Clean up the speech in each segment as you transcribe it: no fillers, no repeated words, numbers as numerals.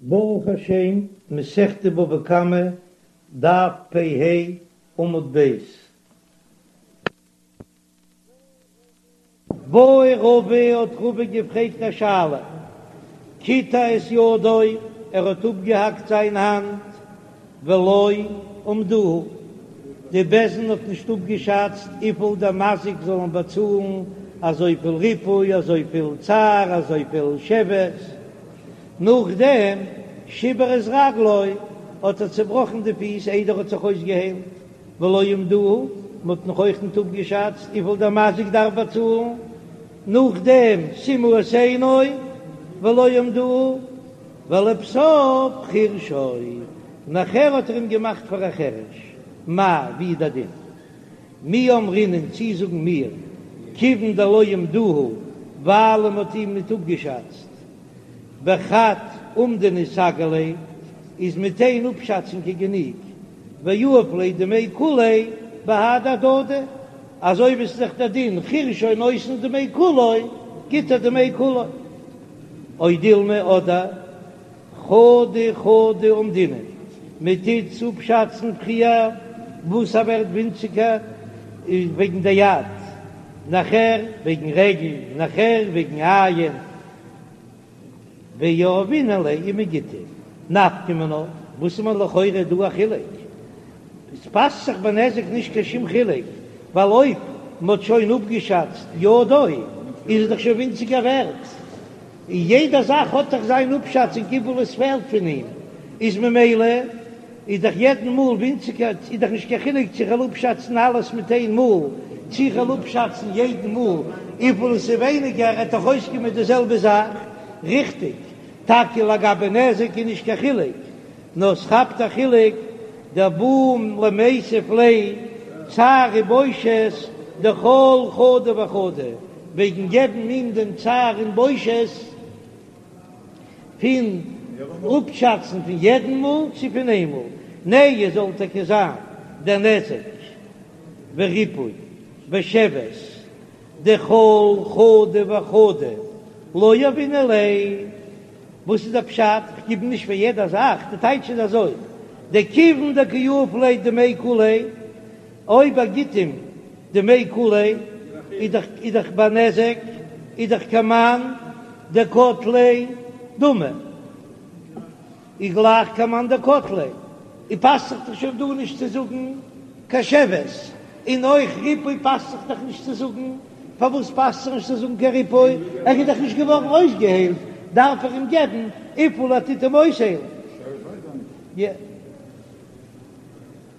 ברוך השם, מסכת בבא קמא, דף פ ה, עמוד ב'. בעי רבא האט רבא געפרעגט א שאלה, קיטע את ידו, ער האט אפגעהאקט זיין האנט, ולא אמדוהו, די בית דין האט נישט אפגעשאצט וויפיל דער מזיק זאל אים באצאלן, אזויפיל ריפוי, אזויפיל צער, אזויפיל שבת. נאכדעם שיבר את רגלו, האט ער צעבראכן די פיס איידער ער האט זיך אויסגעהיילט, ולא אמדוהו, מען האט נאך אויך ניט אפגעשאצט וויפיל דער מזיק דארף באצאלן, נאכדעם סימא את עינו, ולא אמדוהו, ולבסוף חירשו, נאכער האט ער אים געמאכט פאר א חרש, מהו, ווי איז דער דין? מי אמרינן צי זאגן מיר, כיוון דלא אמדוהו, ווייל מען האט אים ניט אפגעשאצט, בחד אומדנא סגי ליה, איז מיט איין אפשאצונג גענוג, ויהיב ליה דמי כוליה בהדי הדדי, אזוי ווי ס'איז דאך דער דין חירשו נותן דמי כולו, גיט ער דמי כולו. או דילמא אדער חדא חדא אמדינן, מען טוט אפשאצן פריער וואס ער ווערט ווינציגער וועגן די יד, נאכער וועגן רגל, נאכער וועגן עין, ויהבינן ליה און מען גיט אים נפקא מינה, וואס איז מיר לכאורה דא א חילוק? עס פאסט זיך ביי נזק נישט קיין שום חילוק, ווייל אויב מען האט שוין אפגעשאצט ידו איז עס דאך שוין ווינציגער ווערט, און יעדע זאך האט דאך זיין אפשאצונג וויפיל עס פעלט פון אים, איז ממילא איז דאך יעדן מאל ווינציגער, איז דאך נישט קיין חילוק צו איך וועל אפשאצן אלעס מיט איין מאל, צו איך וועל אפשאצן יעדן מאל וויפיל עס איז ווייניגער, עט דאך אויסקומען די זעלבע זאך, ריכטיג? טאקע לגבי נזק איז נישט קיין חילוק, נאר ס'כאפט א חילוק דבעי למיתב ליה צער ובושת דכל חדא וחדא, וועגן געבן אים דעם צער און בושת פון אפשאצן פון יעדן מאל צו פון איין מאל, נהי זאל טאקע זיין דער נזק וריפוי ושבת דכל חדא וחדא לא יהבינן ליה. וואס איז דער פשט? כ'גיב נישט פאר יעדע זאך, די טייטש איז אזוי, דכיון דקא יהיב ליה דמי כוליה, אויב ער גיט אים דמי כוליה, איז דאך איז דאך ביי נזק, איז דאך כמאן דקטליה דמי, איז גלייך כמאן דקטליה, און פאסט זיך דאך שוין דא נישט צו זאגן קיין שבת, און אויך ריפוי פאסט זיך דאך נישט צו זאגן. פארוואס פאסט זיך נישט צו זאגן קיין ריפוי? ער איז דאך נישט געווארן אויסגעהיילט, דארף ער אים געבן וויפיל ער טוט אים אויסהיילן.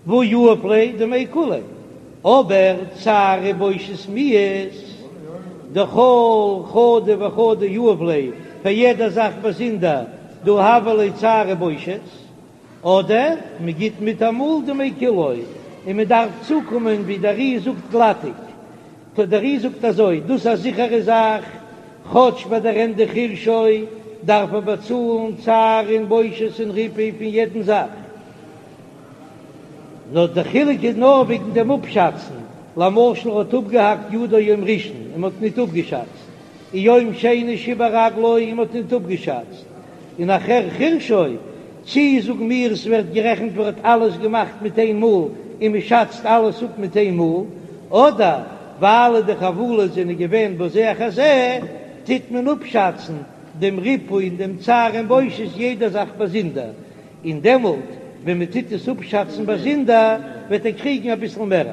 והא יהיב ליה דמי כוליה, אבער צער ובושת מיהת דכל חדא וחדא יהיב ליה, פאר יעדע זאך באזונדער, דהא הוה ליה צער ובושת. אדער מען גיט מיטאמאל דמי כולו און מען דארף צוקומען ווי דער ר"י זאגט גלאטיג. טא דער ר"י זאגט אזוי, דאס איז א זיכערע זאך, כאטש ביי דער ענדע חירשו דארף ער באצאלן צער און בושת און ריפוי פון יעדן זאך, נאר דער חילוק איז נאר וועגן דעם אפשאצן, למשל ער האט אפגעהאקט ידו יום ראשון און מען האט ניט אפגעשאצט, און יום שני שיבר רגלו און מ'האט ניט אפגעשאצט, און נאכער חירשו, צי זאגן מיר עס ווערט גערעכנט ווי ער האט אלעס געמאכט מיט איין מאל און מ'שאצט אלעס אפ מיט איין מאל, אדער ווייל די חבלות זענען געווען בזה אחר זה, טוט מען אפשאצן דעם ריפוי און דעם צער און בושת יעדע זאך באזונדער, און דעמאלט ווען מ'טוט עס אפשאצן באזונדער וועט ער קריגן אביסל מער.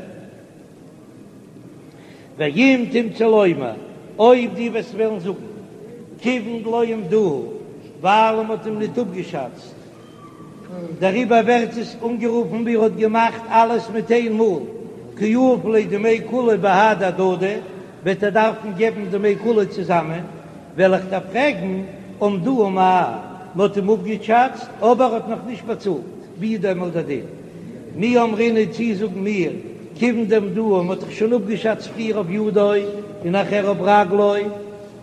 ואם תמצא לומר, אויב דו וועסט וועלן זאגן, כיוון דלא אמדוהו, ווייל מען האט אים ניט אפגעשאצט, דעריבער ווערט עס אנגערופן ווי ער האט געמאכט אלעס מיט איין מאל, קא יהיב ליה דמי כוליה בהדי הדדי, וועט ער דארפן געבן דמי כוליה צוזאמען, וועל איך דיר פרעגן, אמדוהו מאי, מען האט אים אפגעשאצט, אבער ער האט נאך נישט באצאלט. ווי איז דעמאלט דער דין? מי אמרינן צי זאגן מיר, כיוון דאמדוהו, מ'האט דאך שוין אפגעשאצט פריער אויף ידו און נאכער אויף רגלו,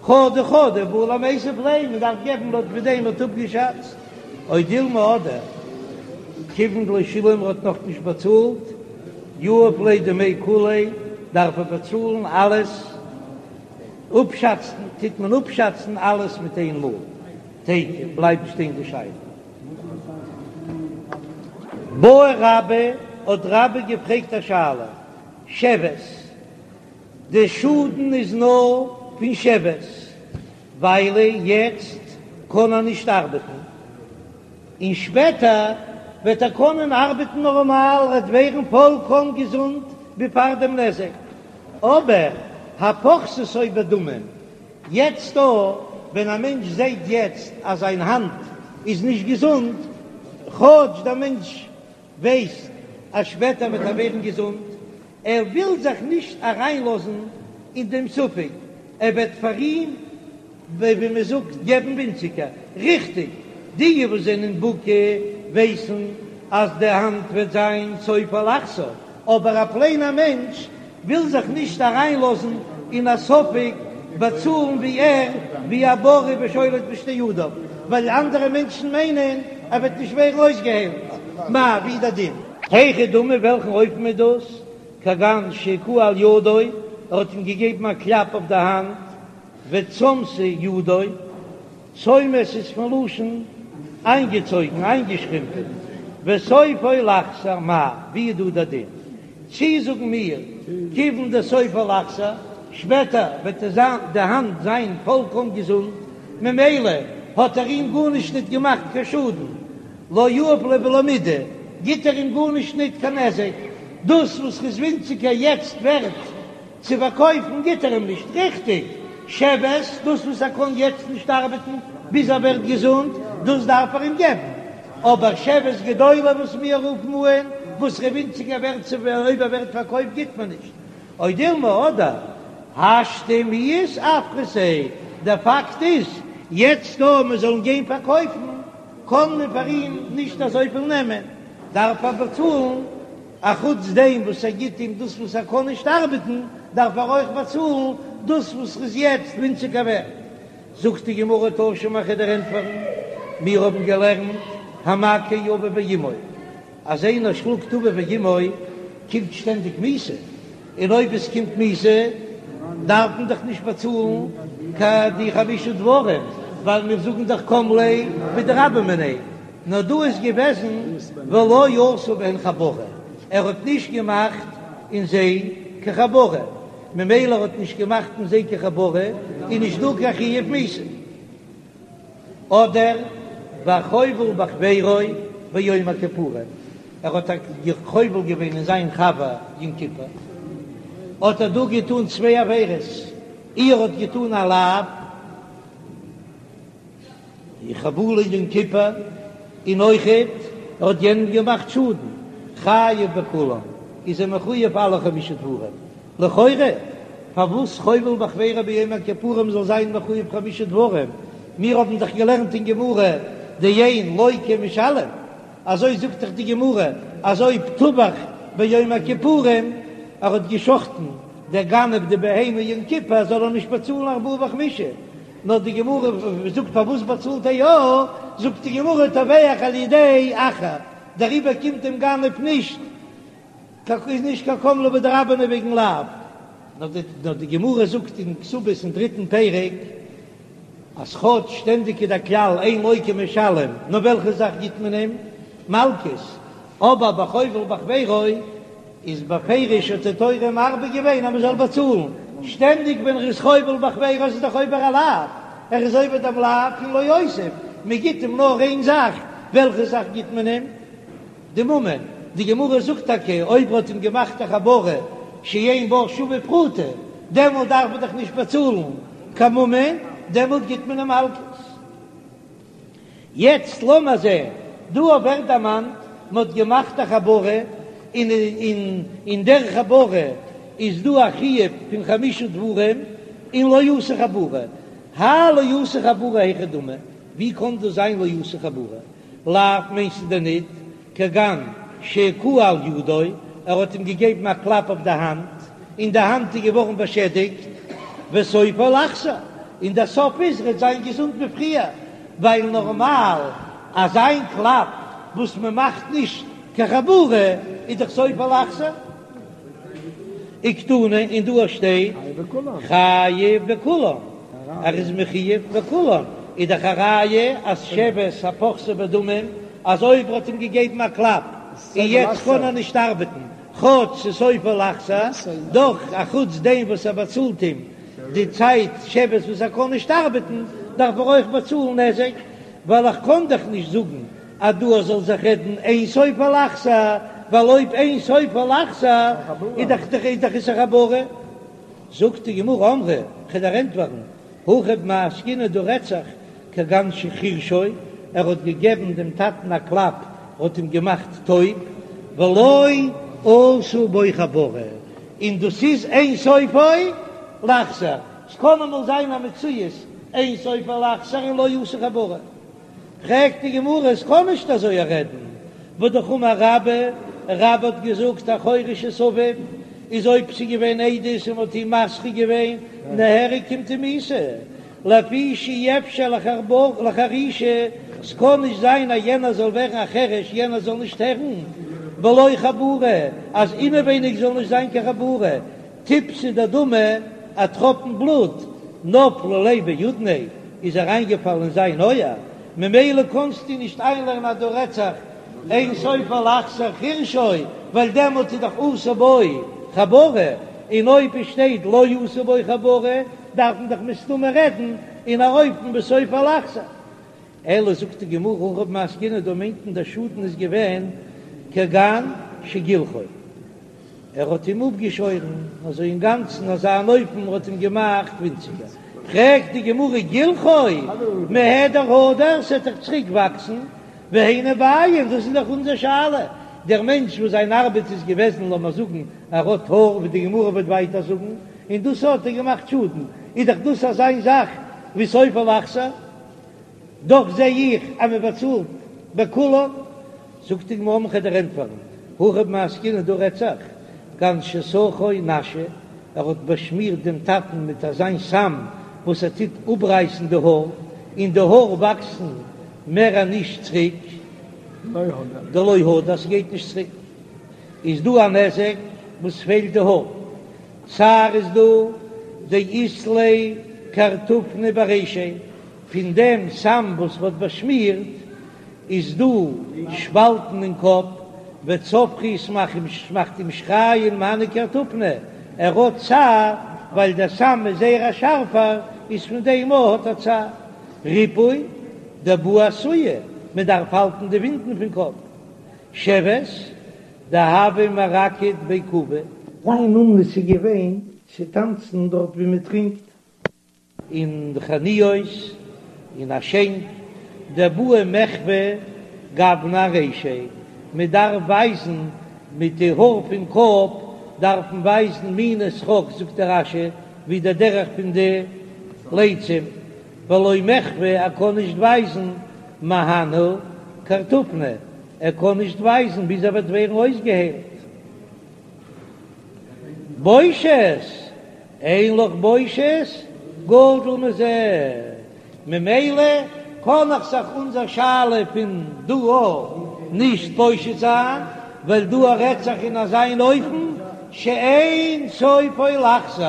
חדא חדא בעי למיתב ליה, מ'דארף געבן לויט ווי דעם מ'האט אפגעשאצט, או דילמא אדער כיוון דלא שילם ער האט נאך נישט באצאלט, יהיב ליה דמי כוליה, דארף ער באצאלן אלעס, אפשאצן טוט מען אפשאצן אלעס מיט איין מאל, תיקו, בלייבט שטיין די שאלה. בעי רבה, האט רבה געפרעגט א שאלה, שבת, די שאדן איז נאר פון שבת, ווייל יעצט קען ער נישט ארבעטן, און שפעטער וועט ער קענען ארבעטן נארמאל, ער וועט ווערן פולקאם געזונט ווי פאר דעם נזק, אבער הפוחתתו בדמים, יעצט דא ווען א מענטש זעט יעצט אז זיין האנט איז נישט געזונט, כאטש דער מענטש ווייסט אז שפעטער וועט ער ווערן געזונט, ער וויל זיך נישט אריינלאזן אין דעם ספק, ער וועט פאר אים, ווי מען זאגט, געבן ווינציגער. ריכטיג, די וואס זענען בקי ווייסן אז די האנט וועט זיין סופה לחזור, אבער א פלעינער מענטש וויל זיך נישט אריינלאזן אין א ספק באצאלן ווי ער ווי א בריא ושולט בשתי ידיו, ווייל אנדערע מענטשן מיינען ער וועט נישט ווערן אויסגעהיילט. מאי, ווי איז דער דין? היכי דמי וועלכן אופן איז דאס? כגון שהכהו על ידו, ער האט אים געגעבן א קלאפ אויף די האנט, וצמתה ידו, צומת איז פון לשון איינגעצויגן, איינגעשרימפען, וסופו לחזור, מאי, ווי איז דא דער דין? צי זאגן מיר, כיוון דסופו לחזור, שפעטער וועט די האנט זיין פולקאם געזונט, ממילא האט ער אים גארנישט ניט געמאכט קיין שאדן, לא יהיב ליה בלא מידי, גיט ער אים גארנישט ניט קיין נזק, דאס וואס ר'איז ווינציגער יעצט ווערט צו פארקויפן גיט ער אים נישט, ריכטיג, שבת, דאס וואס ער קען יעצט נישט ארבעטן ביז ער ווערט געזונט, דאס דארף ער אים געבן, אבער שבת גדולה וואס מיר רופן אן, וואס ר'איז ווינציגער ווערט צו אויב ער ווערט פארקויפט גיט מען נישט, או דילמא אדער השתא מיהת אפחתיה, דער פאקט איז יעצט דא מען זאל אים גיין פארקויפן קען מען פאר אים נישט אזויפיל נעמען, דארף ער באצאלן. אחוץ דעם וואס ער גיט אים דאס וואס ער קען נישט ארבעטן, דארף ער אויך באצאלן דאס וואס ר'איז יעצט ווינציגער ווערט. זאגט די גמרא תא שמע כ'וועל דיר ענטפערן, מיר האבן געלערנט המכה אביו ואמו, אז איינער שלאגט אביו ואמו קומט שטענדיג מיתה, און אויב עס קומט מיתה דארף מען דאך נישט באצאלן קיין די חמשה דברים, ווייל מיר זאגן דאך קם ליה בדרבה מיניה. נאר דא איז געוועזן ולא עשה בהן חבורה, ער האט נישט געמאכט אין זיי קיין חבורה, ממילא ער האט נישט געמאכט אין זיי קיין חבורה איז נישט דא קיין חיוב מיתה. אדער והחובל בחבירו ביום הכיפורים, ער האט חובל געווען אין זיין חבר יום כיפור, האט ער דא געטון צוויי עבירות, אי ער האט געטון א לאו, די חבלה יום כיפור, און אויכעט ער האט יענעם געמאכט שאדן, חייב בכולם, איז ער מחויב אלע חמשה דברים, לכאורה פארוואס חובל בחבירו ביום הכיפורים זאל זיין מחויב חמשה דברים, מיר האבן דאך געלערנט אין גמרא דאין לוקה ומשלם, אזוי זאגט דאך די גמרא אז אויב טבח ביום הכיפורים ער האט געשחטן דער גנב די בהמה יום כיפור זאל ער נישט באצאלן ארבעה וחמישה, נאר די גמרא זאגט פארוואס באצאלט ער יא, זאגט די גמרא טובח על ידי אחר, דעריבער קומט דעם גנב נישט איז נישט קיין קם ליה בדרבה מיניה וועגן לאו, נאר די גמרא זאגט אין כתובות אין דריטן פרק אז כאטש שטענדיג איז דער כלל אין לוקה ומשלם, נאר וועלכע זאך גיט מען אים? מלקות, אבער בחובל בחבירו איז בפירוש האט די תורה מרבה געווען אז מען זאל באצאלן, שטענדיג ווען ער איז חובל בחבירו איז דאך עובר א לאו, ער איז עובר דעם לאו פון לא יוסיף, מען גיט אים נאר איין זאך, וועלכע זאך גיט מען אים? די ממון, די גמרא זאגט טאקע אויב ער האט אים געמאכט א חבורה שאין בה שווה פרוטה, דעמאלט דארף מען דאך נישט באצאלן קיין ממון, דעמאלט גיט מען אים מלקות. יעצט לאמיר זען, דא ווערט דערמאנט מען האט געמאכט א חבורה, און אין דער חבורה איז דא א חיוב פון חמשה דברים, און לא עשה חבורה, האי לא עשה חבורה היכי דמי, ווי קען דאס זיין לא עשה חבורה? לאו מיינסטו דען ניט כגון שהכהו על ידו, ער האט אים געגעבן א קלאפ אויף די האנט, און די האנט איז געווארן באשעדיגט, וסופו לחזור, און דער סוף איז ער וועט זיין געזונט ווי פריער, ווייל נארמאל אזא קלאפ וואס מען מאכט נישט קיין חבורה איז דאך סופו לחזור. וקתני, און דא שטייט חייב בכולם, ער איז מחויב בכולם, איז דאך א ראיה אז שבת הפוחתתו בדמים. אז אויב ער האט אים געגעבן א קלאפ און יעצט קען ער נישט ארבעטן, כאטש ס'איז סופו לחזור, דאך אחוץ דעם וואס ער באצאלט אים די צייט שבת וואס ער קען נישט ארבעטן, דארף ער אויך באצאלן נזק, ווייל איך קען דאך נישט זאגן אז דא זאל זיך רעדן אין סופו לחזור, ווייל אויב אין סופו לחזור איז דאך איז דאך איסור חבורה. זאגט די גמרא אמרי, כ'וועל דיר ענטפערן, הכא במאי עסקינן דא רעדט זיך כגון שחירשו, ער האט געגעבן דעם טאטן א קלאפ, האט אים געמאכט טויב, ולא עשה בו חבורה, און דאס איז אין סופו לחזור, ס'קען אמאל זיין א מציאות אין סופו לחזור און לא עשה חבורה. פרעגט די גמרא, עס קען נישט אזוי רעדן, והאמר רבה, רבה האט געזאגט החורש את אביו, איז אויב ס'איז געווען עדות און מ'האט אים מתרה געווען, נהרג קומט אים מיתה, לפי שאי אפשר לחרישה, ס'קען נישט זיין אז יענער זאל ווערן א חרש, יענער זאל נישט הערן, בלא חבורה, אז אינעווייניג זאל נישט זיין קיין חבורה, טיפתא דדמא, א טראפן בלוט, נפלה ליה באודניה, איז אריינגעפאלן אין זיין אויער, ממילא קאנסטו נישט איינלערנען אז דא רעדט זיך אין סופו לחזור חירשו, ווייל דעמאלט איז דאך עשה בו חבורה, און אויב עס שטייט לא עשה בו חבורה דארף מען דאך מסתמא רעדן אין א אופן וואס סופו לחזור. אלא זאגט די גמרא הכא במאי עסקינן דא מיינט מען דער שאדן איז געווען כגון שגילחו. ער האט אים אפגעשוירן אזוי אינגאנצן אזא אן אופן האט אים געמאכט ווינציגער, פרעגט די גמרא גילחו מהדר הדר ס'עט דאך צוריק וואקסן, והיינו בעיא דאס איז דאך אונזער שאלה, דער מענטש וואס זיין ארבעט איז געוועזן לאמער זאגן ער האט האר ווי די גמרא וועט ווייטער זאגן, און דאס האט ער געמאכט שאדן, איז דאך דאס אזא זאך ווי סופו לחזור. דאך זע איך אז מען באצאלט בכולן, זאגט די גמרא כ'וועל דיר ענטפערן, הכא במאי עסקינן דא רעדט זיך כגון שסכו נשא, ער האט באשמירט דעם טאטן מיט אזיין סם וואס ער טוט אפרייסן די האר, און די האר וואקסן מער נישט צוריק, דלא הדר ס'גייט נישט צוריק, איז דא א נזק וואס פעלט די האר, צער איז דא דאית ליה קרטופני ברישיה. פון דעם סם וואס מ'האט באשמירט איז דא שפאלטן אין קאפ, וצווחי ס'מאכט אים שרייען מהני קרטופני, ער האט צער ווייל דער סם איז זייער א שארפער, איז פון דעם אויך האט ער צער. ריפוי דבעי אסויי, מען דארף האלטן די ווונדן פון קאפ. שבת דהוה מרקד בי כובי. זיין אומנות איז געווען צו טאנצן דארט ווי מען טרינקט. אין חנויות אין א שענק דבעי מחוה גוונא ארישיה, מען דארף ווייזן מיט די האר פון קאפ דארף מען ווייזן מיני שחוק זאגט דער רש"י ווי דער דרך פון די לצים, ולא מחוה ער קען נישט ווייזן מהני קרטופני ער קען נישט ווייזן ביז ער וועט ווערן אויסגעהיילט. בושת! אין לך בושת גדול מזה, ממילא קען איך זיך אונזער שאלה פון דא נישט פושט זיין, ווייל דא רעדט זיך אין אזיין אופן שאין סופו לחזור,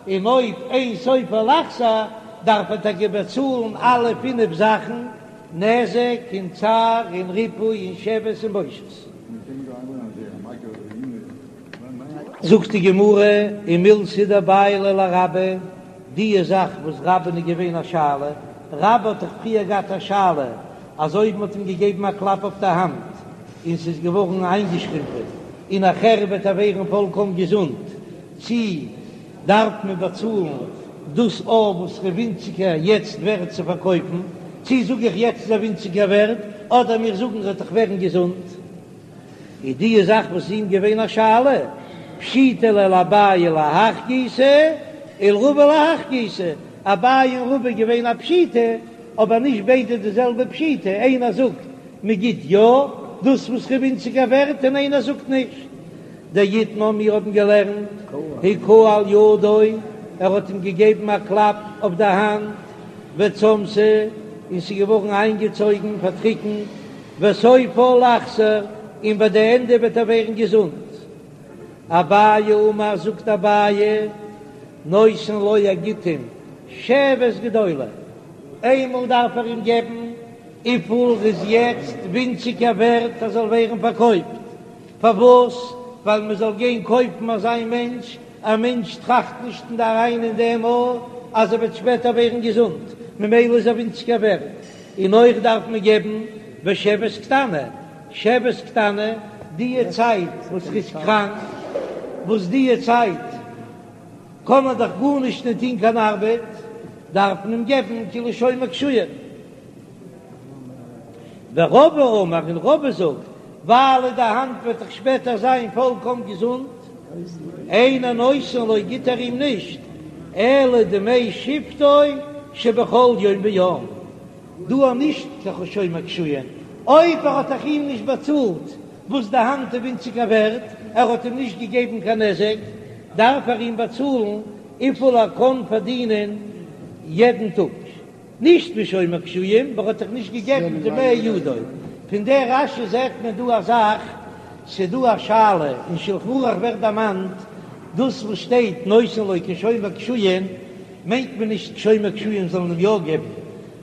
און אויב אין סופו לחזור דארף ער טאקע באצאלן אלע פינף זאכן, נזק און צער און ריפוי און שבת און בושת. זאגט די גמרא, ומילתא דבעיא ליה לרבה, די זאך וואס רבה'ן איז געווען א שאלה, רבה האט דאך פריער געהאט א שאלה אז אויב מ'האט אים געגעבן א קלאפ אויף די האנט און ס'איז געווארן איינגעשרימפען און נאכער וועט ער ווערן פולקאם געזונט, צי דארף מען באצאלן דאס אויף וואס ר'איז ווינציגער יעצט ווערט צו פארקויפן, צי זאג איך יעצט איז ער ווינציגער ווערט, אדער מיר זאגן ר'וועט דאך ווערן געזונט. איז די זאך וואס איז אים געווען א שאלה, פשיטא ליה לאביי להך גיסא ולרבא להך גיסא, אביי און רבא איז געווען א פשיטא, אבער נישט ביידע די זעלבע פשיטא, איינער זאגט מען גיט יא דאס וואס ר'איז ווינציגער ווערט און איינער זאגט נישט. דאיתמר מיר האבן געלערנט הכהו על ידו, ער האט אים געגעבן א קלאפ אויף די האנט, וצמתה, און ס'איז געווארן איינגעצויגן, פארטריקנט, וסופה לחזור, און ביי די ענדע וועט ער ווערן געזונט. אביי אמר, זאגט אביי, נותן לו ער גיט אים שבת גדולה, איינמאל דארף ער אים געבן. וויפיל איז יעצט ווינציגער ווערט ער זאל ווערן פארקויפט, פארוואס? ווייל מען זאל גיין קויפן אזא מענטש, א מענטש טראכט נישט אין אריין אין דעם א אז ער וועט שפעטער ווערן געזונט, ממילא איז ער ווינציגער ווערט, און אויך דארף מען געבן ושבת קטנה, שבת קטנה, דיע צייט וואס ער איז קראנק, וואס דיע צייט קען ער דאך גארנישט נישט טון קיין ארבעט, דארף מען אים געבן כאילו שומר קישואין. ורבא אמר, און רבא זאגט, ווייל די האנט וועט דאך שפעטער זיין פולקאם געזונט, אינו נותן לו גיט ער אים נישט, אלא דמי שבתו שבכל יום ויום, דא איז נישט קיין שומר קישואין, אויב ער האט דאך אים נישט באצאלט וואס די האנט איז ווינציגער ווערט, ער האט אים נישט געגעבן קיין נזק, דארף ער אים באצאלן וויפיל ער קען פארדינען יעדן טאג. נישט ווי שומר קישואין, ווייל ער האט דאך נישט געגעבן דמי ידו. פון דער רש"י זעט מען דא א זאך, ס'דא א שאלה, אין שלחן ערוך ווערט דערמאנט, דאס וואס שטייט נותן לו כשומר קישואין, מיינט מען נישט שומר קישואין זאל אים יא געבן,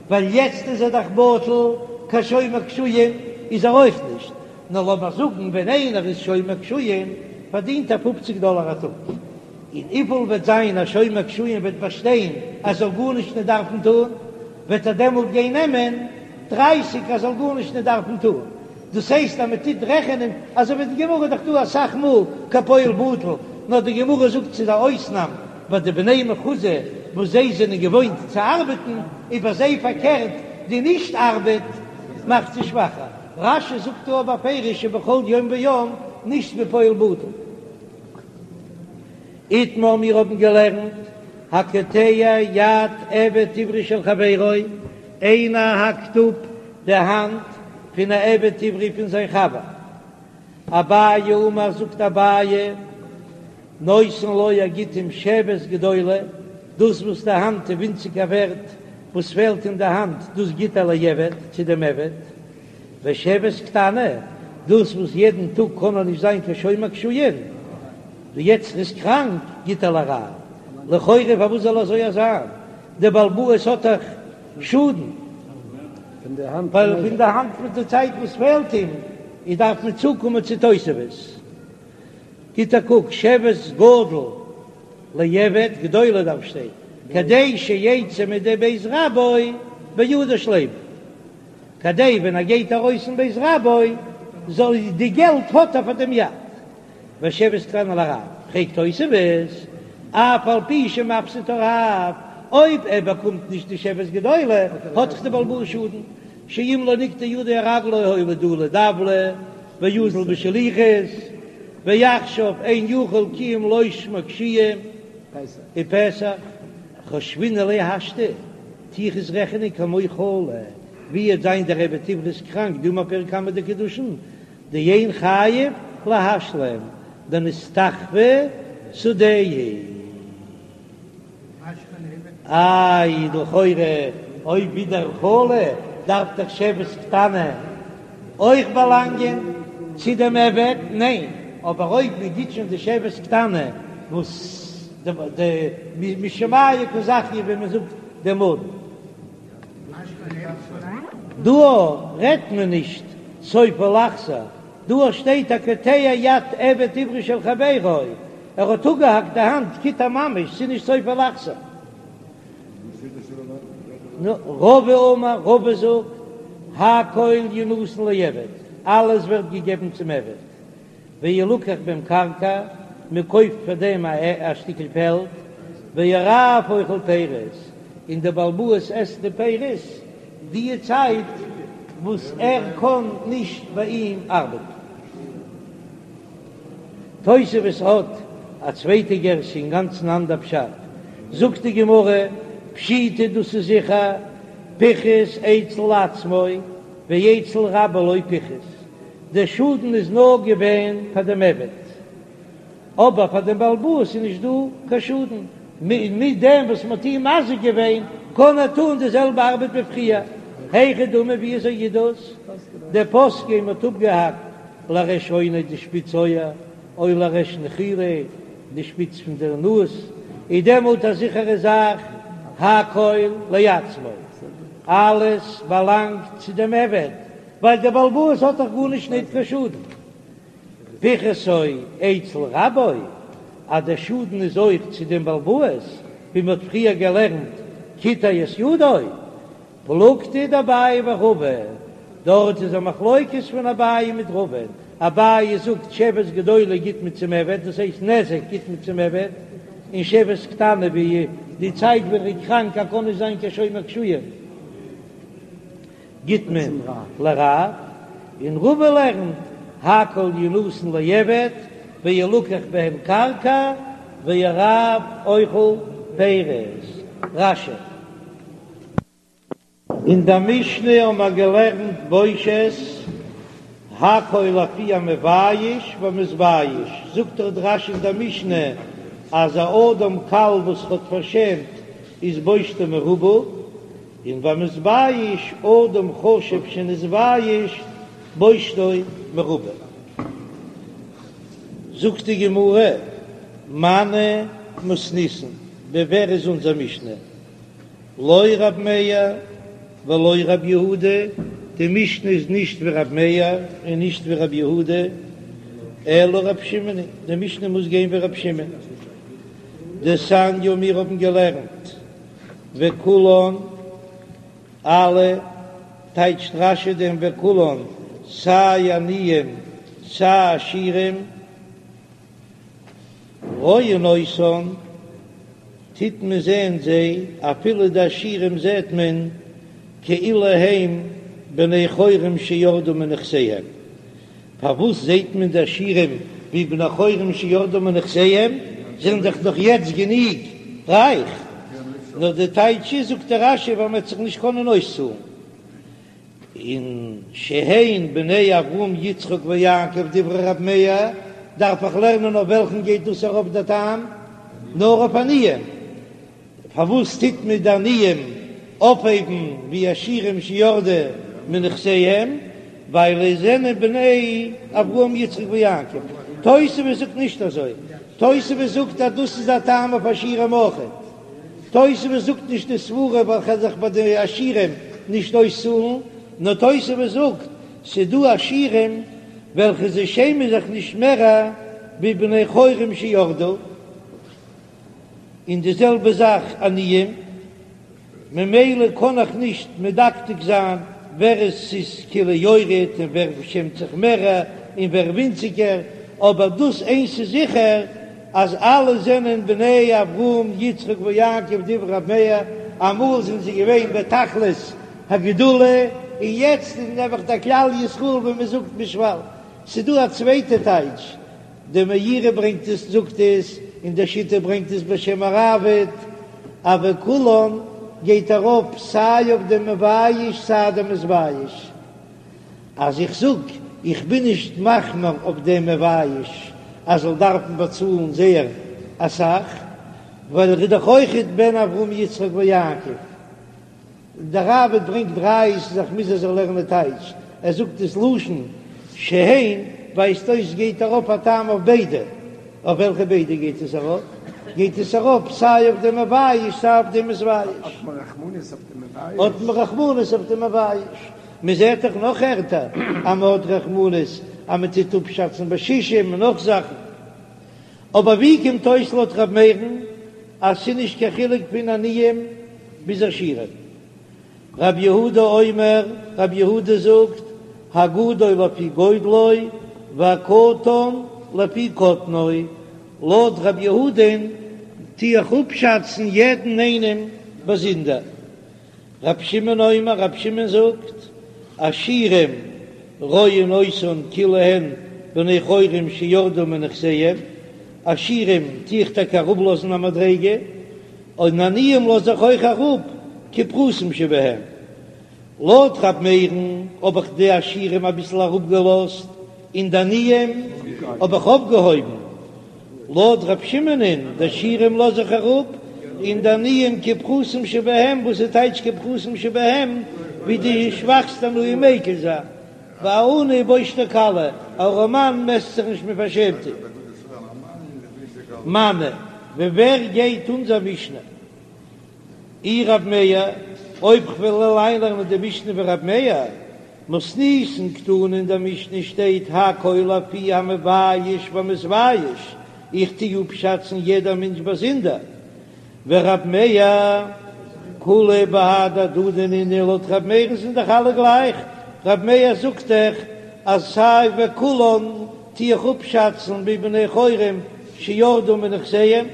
ווייל יעצט איז ער דאך בטל, קיין שומר קישואין איז ער אויך נישט, נאר לאמיר זאגן ווען איינער איז שומר קישואין פארדינט ער פופציג דאלער א טאג, און וויפיל וועט זיין א שומר קישואין וועט באשטיין ער זאל גארנישט נישט דארפן טון, וועט ער דעמאלט גיין נעמען דרייסיג ער זאל גארנישט נישט דארפן טון, דאס הייסט אז מען טוט רעכענען אזוי ווי די גמרא איז דאך דא אסאך מאל כפועל בטל, נאר די גמרא זאגט ס'איז א אויסנאם ביי די בני מחוזא וואס זיי זענען געוואוינט צו ארבעטן, איז ביי זיי פארקערט די נישט ארבעט מאכט זיי שוואכער, רש"י זאגט דא בפירוש שבכל יום ויום נישט ווי פועל בטל. איתמר מיר האבן געלערנט הקוטע יד עבד עברי של חברו, איינער האקט אפ די האנט פון א עבד עברי פון זיין חבר. אביי אמר זאגט אביי נותן לו ער גיט אים שבת גדולה, דאס וואס די האנט איז ווינציגער ווערט, וואס פעלט אין די האנט דאס גיט ער לעבד צו דעם עבד. ושבת קטנה, דאס וואס יעדן טאג קען ער נישט זיין קיין שומר קישואין, ווי יעצט ער איז קראנק, גיט ער לרב. לכאורה פארוואס זאל אזוי זיין? דער בעל הבית האט דאך שאדן ווייל פון די האנט מיט די צייט וואס פעלט אים, איז דארף מען צוקומען צו תוספות. גיט א קוק, שבת גדול לעבד, גדולה דארף שטיין, כדי שיצא מידי בית רבו בידו שלימה. כדי ווען ער גייט ארויס פון בית רבו זאל די געלט האט ער פאר דעם יד. ושבת קטנה לרב, פרעגט תוספות, אף על פי שמפסיד הרב, אויב ער באקומט נישט די שבת גדולה האט דאך די בעל הבית שאדן, שאם לא נקטעה ידו או רגלו הואיל דלי דבלא ואזיל בשליחות, ועכשיו אין יכול כי אם לשמור קישואין ופסח, חושבינן ליה השתא. טו איך עס רעכענען כמו חולה, ווי וועט זיין דער עבד עברי איז קראנק דאמר פרק קמא דקידושין, דאין חייב להשלים דנסתחפא שדהו. איי לכאורה אויב ווי דער חולה דארף דאך שבת קטנה אויך באלאנגען צו דעם עבד, ניין, אבער אויב מען גיט שוין די שבת קטנה וואס די משמיא קא זכיא ווי מען זאגט דעם אדון. דא רעדט מען נישט סופו לחזור, דא שטייט הקוטע יד עבד עברי של חברו, ער האט אפגעהאקט די האנט קיטע ממש, ס'איז נישט סופו לחזור. רבא אמר, רבא זאגט, הכל ינתן לעבד, אלעס ווערט געגעבן צום עבד. וילקח בהם קרקע, מען קויפט פאר דעם א שטיקל פעלד, והרב אוכל פירות, און דער בעל הבית עסט די פירות די צייט וואס ער קען נישט ביי אים ארבעטן. תוספות האט א צווייטע גירסא אינגאנצן אנדער פשט, זאגט די גמרא, פשיטא דאס איז זיכער, פיחת אצל עצמו ואצל רבו לא פיחת, דער שאדן איז נאר געווען פאר דעם עבד, אבער פאר דעם בעל הבית איז נישט דא קיין שאדן, מיט דעם וואס מען האט אים מזיק געווען קען ער טון די זעלבע ארבעט ווי פריער. היכי דמי ווי אזוי איז דאס? דפסקיה מען האט אפגעהאקט לריש אוניה די שפיץ אויער, או לריש נחיריה די שפיץ פון דער נאז, איז דעמאלט א זיכערע זאך הכל לעצמו. אלעס באלאנגט צו דעם עבד, ווייל דער בעל הבית האט דאך גארנישט ניט קיין שאדן. פיחתו אצל רבו, אז דער שאדן איז אויך צו דעם בעל הבית, ווי מען האט פריער געלערנט קיטע את ידו, פלוגתא דאביי ורבא, דארט איז א מחלוקת פון אביי מיט רבא, אביי זאגט שבת גדולה גיט מען צום עבד, דאס הייסט נזק גיט מען צום עבד, און שבת קטנה ווי די צייט ווען ער איז קראנק ער קען נישט זיין קיין שומר קישואים גיט מען לרב, און רבא לערנט הכל ינתן לעבד וילקח בהם קרקע והרב אוכל פירות. רש"י. אין דער משנה האבן מיר געלערנט בושת הכל לפי המבייש והמתבייש, זאגט דאך דער רש"י אין דער משנה אז א אדם קל וואס האט פארשעמט איז בושתו מרובה, און והמתבייש אדם חשוב שנתבייש בושתו מרובה. זאגט די גמרא, מני מתניתין, ווי ווער איז אונזער משנה? לא רב מאיר ולא רב יהודה, די משנה איז נישט ווי רב מאיר און נישט ווי רב יהודה, אלא רב שמעון היא, די משנה מוז גיין ווי רב שמעון. דתניא מיר האבן געלערנט וכולן, אלע, טייטשט רש"י דעם וכולן, סיי עניים סיי עשירים, רואין אותן, טוט מען זען זיי, אפילו די עשירים זעט מען כאילו הם בני חורין שירדו מנכסיהם. פארוואס זעט מען די עשירים ווי בני חורין שירדו מנכסיהם? זיי זענען דאך נאך יעצט גענוג רייך. נאר די טייטש איז, זאגט דער רש"י, ווייל מען וועט זיך נישט קענען אויסצאלן. און שהן בני אברהם יצחק ויעקב דברי רב מאיר, דארף איך לערנען אויף וועלכן גייט דאס ארויף דער טעם? נאר אויף עניים. פארוואס טוט מען די עניים אויפהייבן ווי עשירים שירדו מנכסיהם? ווייל זיי זענען בני אברהם יצחק ויעקב. תוספות זאגט נישט אזוי, תוספות זאגט אז דאס איז א טעם אויף עשירים אויכעט. תוספות זאגט נישט די סברה ווייל כ'על זיך ביי די עשירים נישט אויסצאלן, נאר תוספות זאגט ס'דא עשירים וועלכע זיי שעמען זיך נישט מער ווי בני חורין שירדו, און די זעלבע זאך עניים. ממילא קען איך נישט מדקדק זיין ווער עס איז כאילו יורד און ווער שעמט זיך מער און ווער ווינציגער, אבער דאס איינס איז זיכער אז אלע זענען בני אברהם יצחק ויעקב דברי ר' מאיר, אמאל זענען זיי געווען בתכלית הגדולה און יעצט איז נעבעך דער כלל ישראל ווי מען זאגט בשפל. ס'דא א צווייטע טייטש דער מאירי ברענגט עס זאגט עס, און דער שיטה ברענגט עס בשם הראב"ד, אז וכולן גייט ארויף סיי אויף דעם מבייש סיי דעם מתבייש. אז איך זאג איך בין נישט מחמיר אויף דעם מבייש אז זאל דארפן באצאלן זייער אסאך, ווייל ער איז דאך אויכעט בן אברהם יצחק ויעקב. דער ראב"ד ברענגט ראיות אז איך מוז אזוי לערנען טייטש, ער זאגט דאס לשון שהן ווייזט אויס גייט ארויף א טעם אויף ביידע, אויף וועלכע ביידע גייט עס ארויף? גייט עס ארויף סיי אויף דעם מבייש סיי אויף דעם מתבייש. האט מען רחמנות אויף דעם מבייש? האט מען רחמנות אויף דעם מבייש? מען זעט דאך נאך ערטער אז מען האט רחמנות אז מען טוט אפשאצן בשישים און נאך זאכן. אבער ווי קומט אויס לויט ר' מאיר'ן אז ס'איז נישט קיין חילוק פון עניים ביז עשירים? רב יהודה אומר, רב יהודה זאגט, הגדול לפי גודלו והקטן לפי קטנו, לויט רב יהודה'ן טו איך אפשאצן יעדן איינעם באזונדער. רבי שמעון אומר, רבי שמעון זאגט, עשירים רואין אותן כאילו הן בני חורין שירדו מנכסיהם, עשירים טו איך טאקע אראפלאזן א מדריגה, און עניים לאז איך אויך אראפ כפחותים שבהם. לויט ר' מאיר'ן האב איך די עשירים אביסל אראפגעלאזט, און די עניים האב איך אויפגעהויבן. לויט ר' שמעונ'ען, די עשירים לאז איך אראפ, און די עניים כפחותים שבהם, וואס איז טייטש כפחותים שבהם, ווי די שוואכסטע עניים מקיל זיין, והעני בושתו קלה, א ארעמאן מעסט זיך נישט מיט פארשעמטע. מני, ווי ווער גייט אונזער משנה? אי רב מאיר? אויב כ'וועל אריינלערנען די משנה ווי רב מאיר, מתניתין קתני אין דער משנה שטייט הכל לפי המבייש והמתבייש, איך טו אפשאצן יעדער מענטש באזונדער, ורב מאיר כולהו בהדי הדדי נינהו, לויט רב מאיר'ן זענען דאך אלע גלייך, רב מאיר זאגט דאך אז סיי וכולן טו איך אפשאצן ווי בני חורין שירדו מנכסיהם.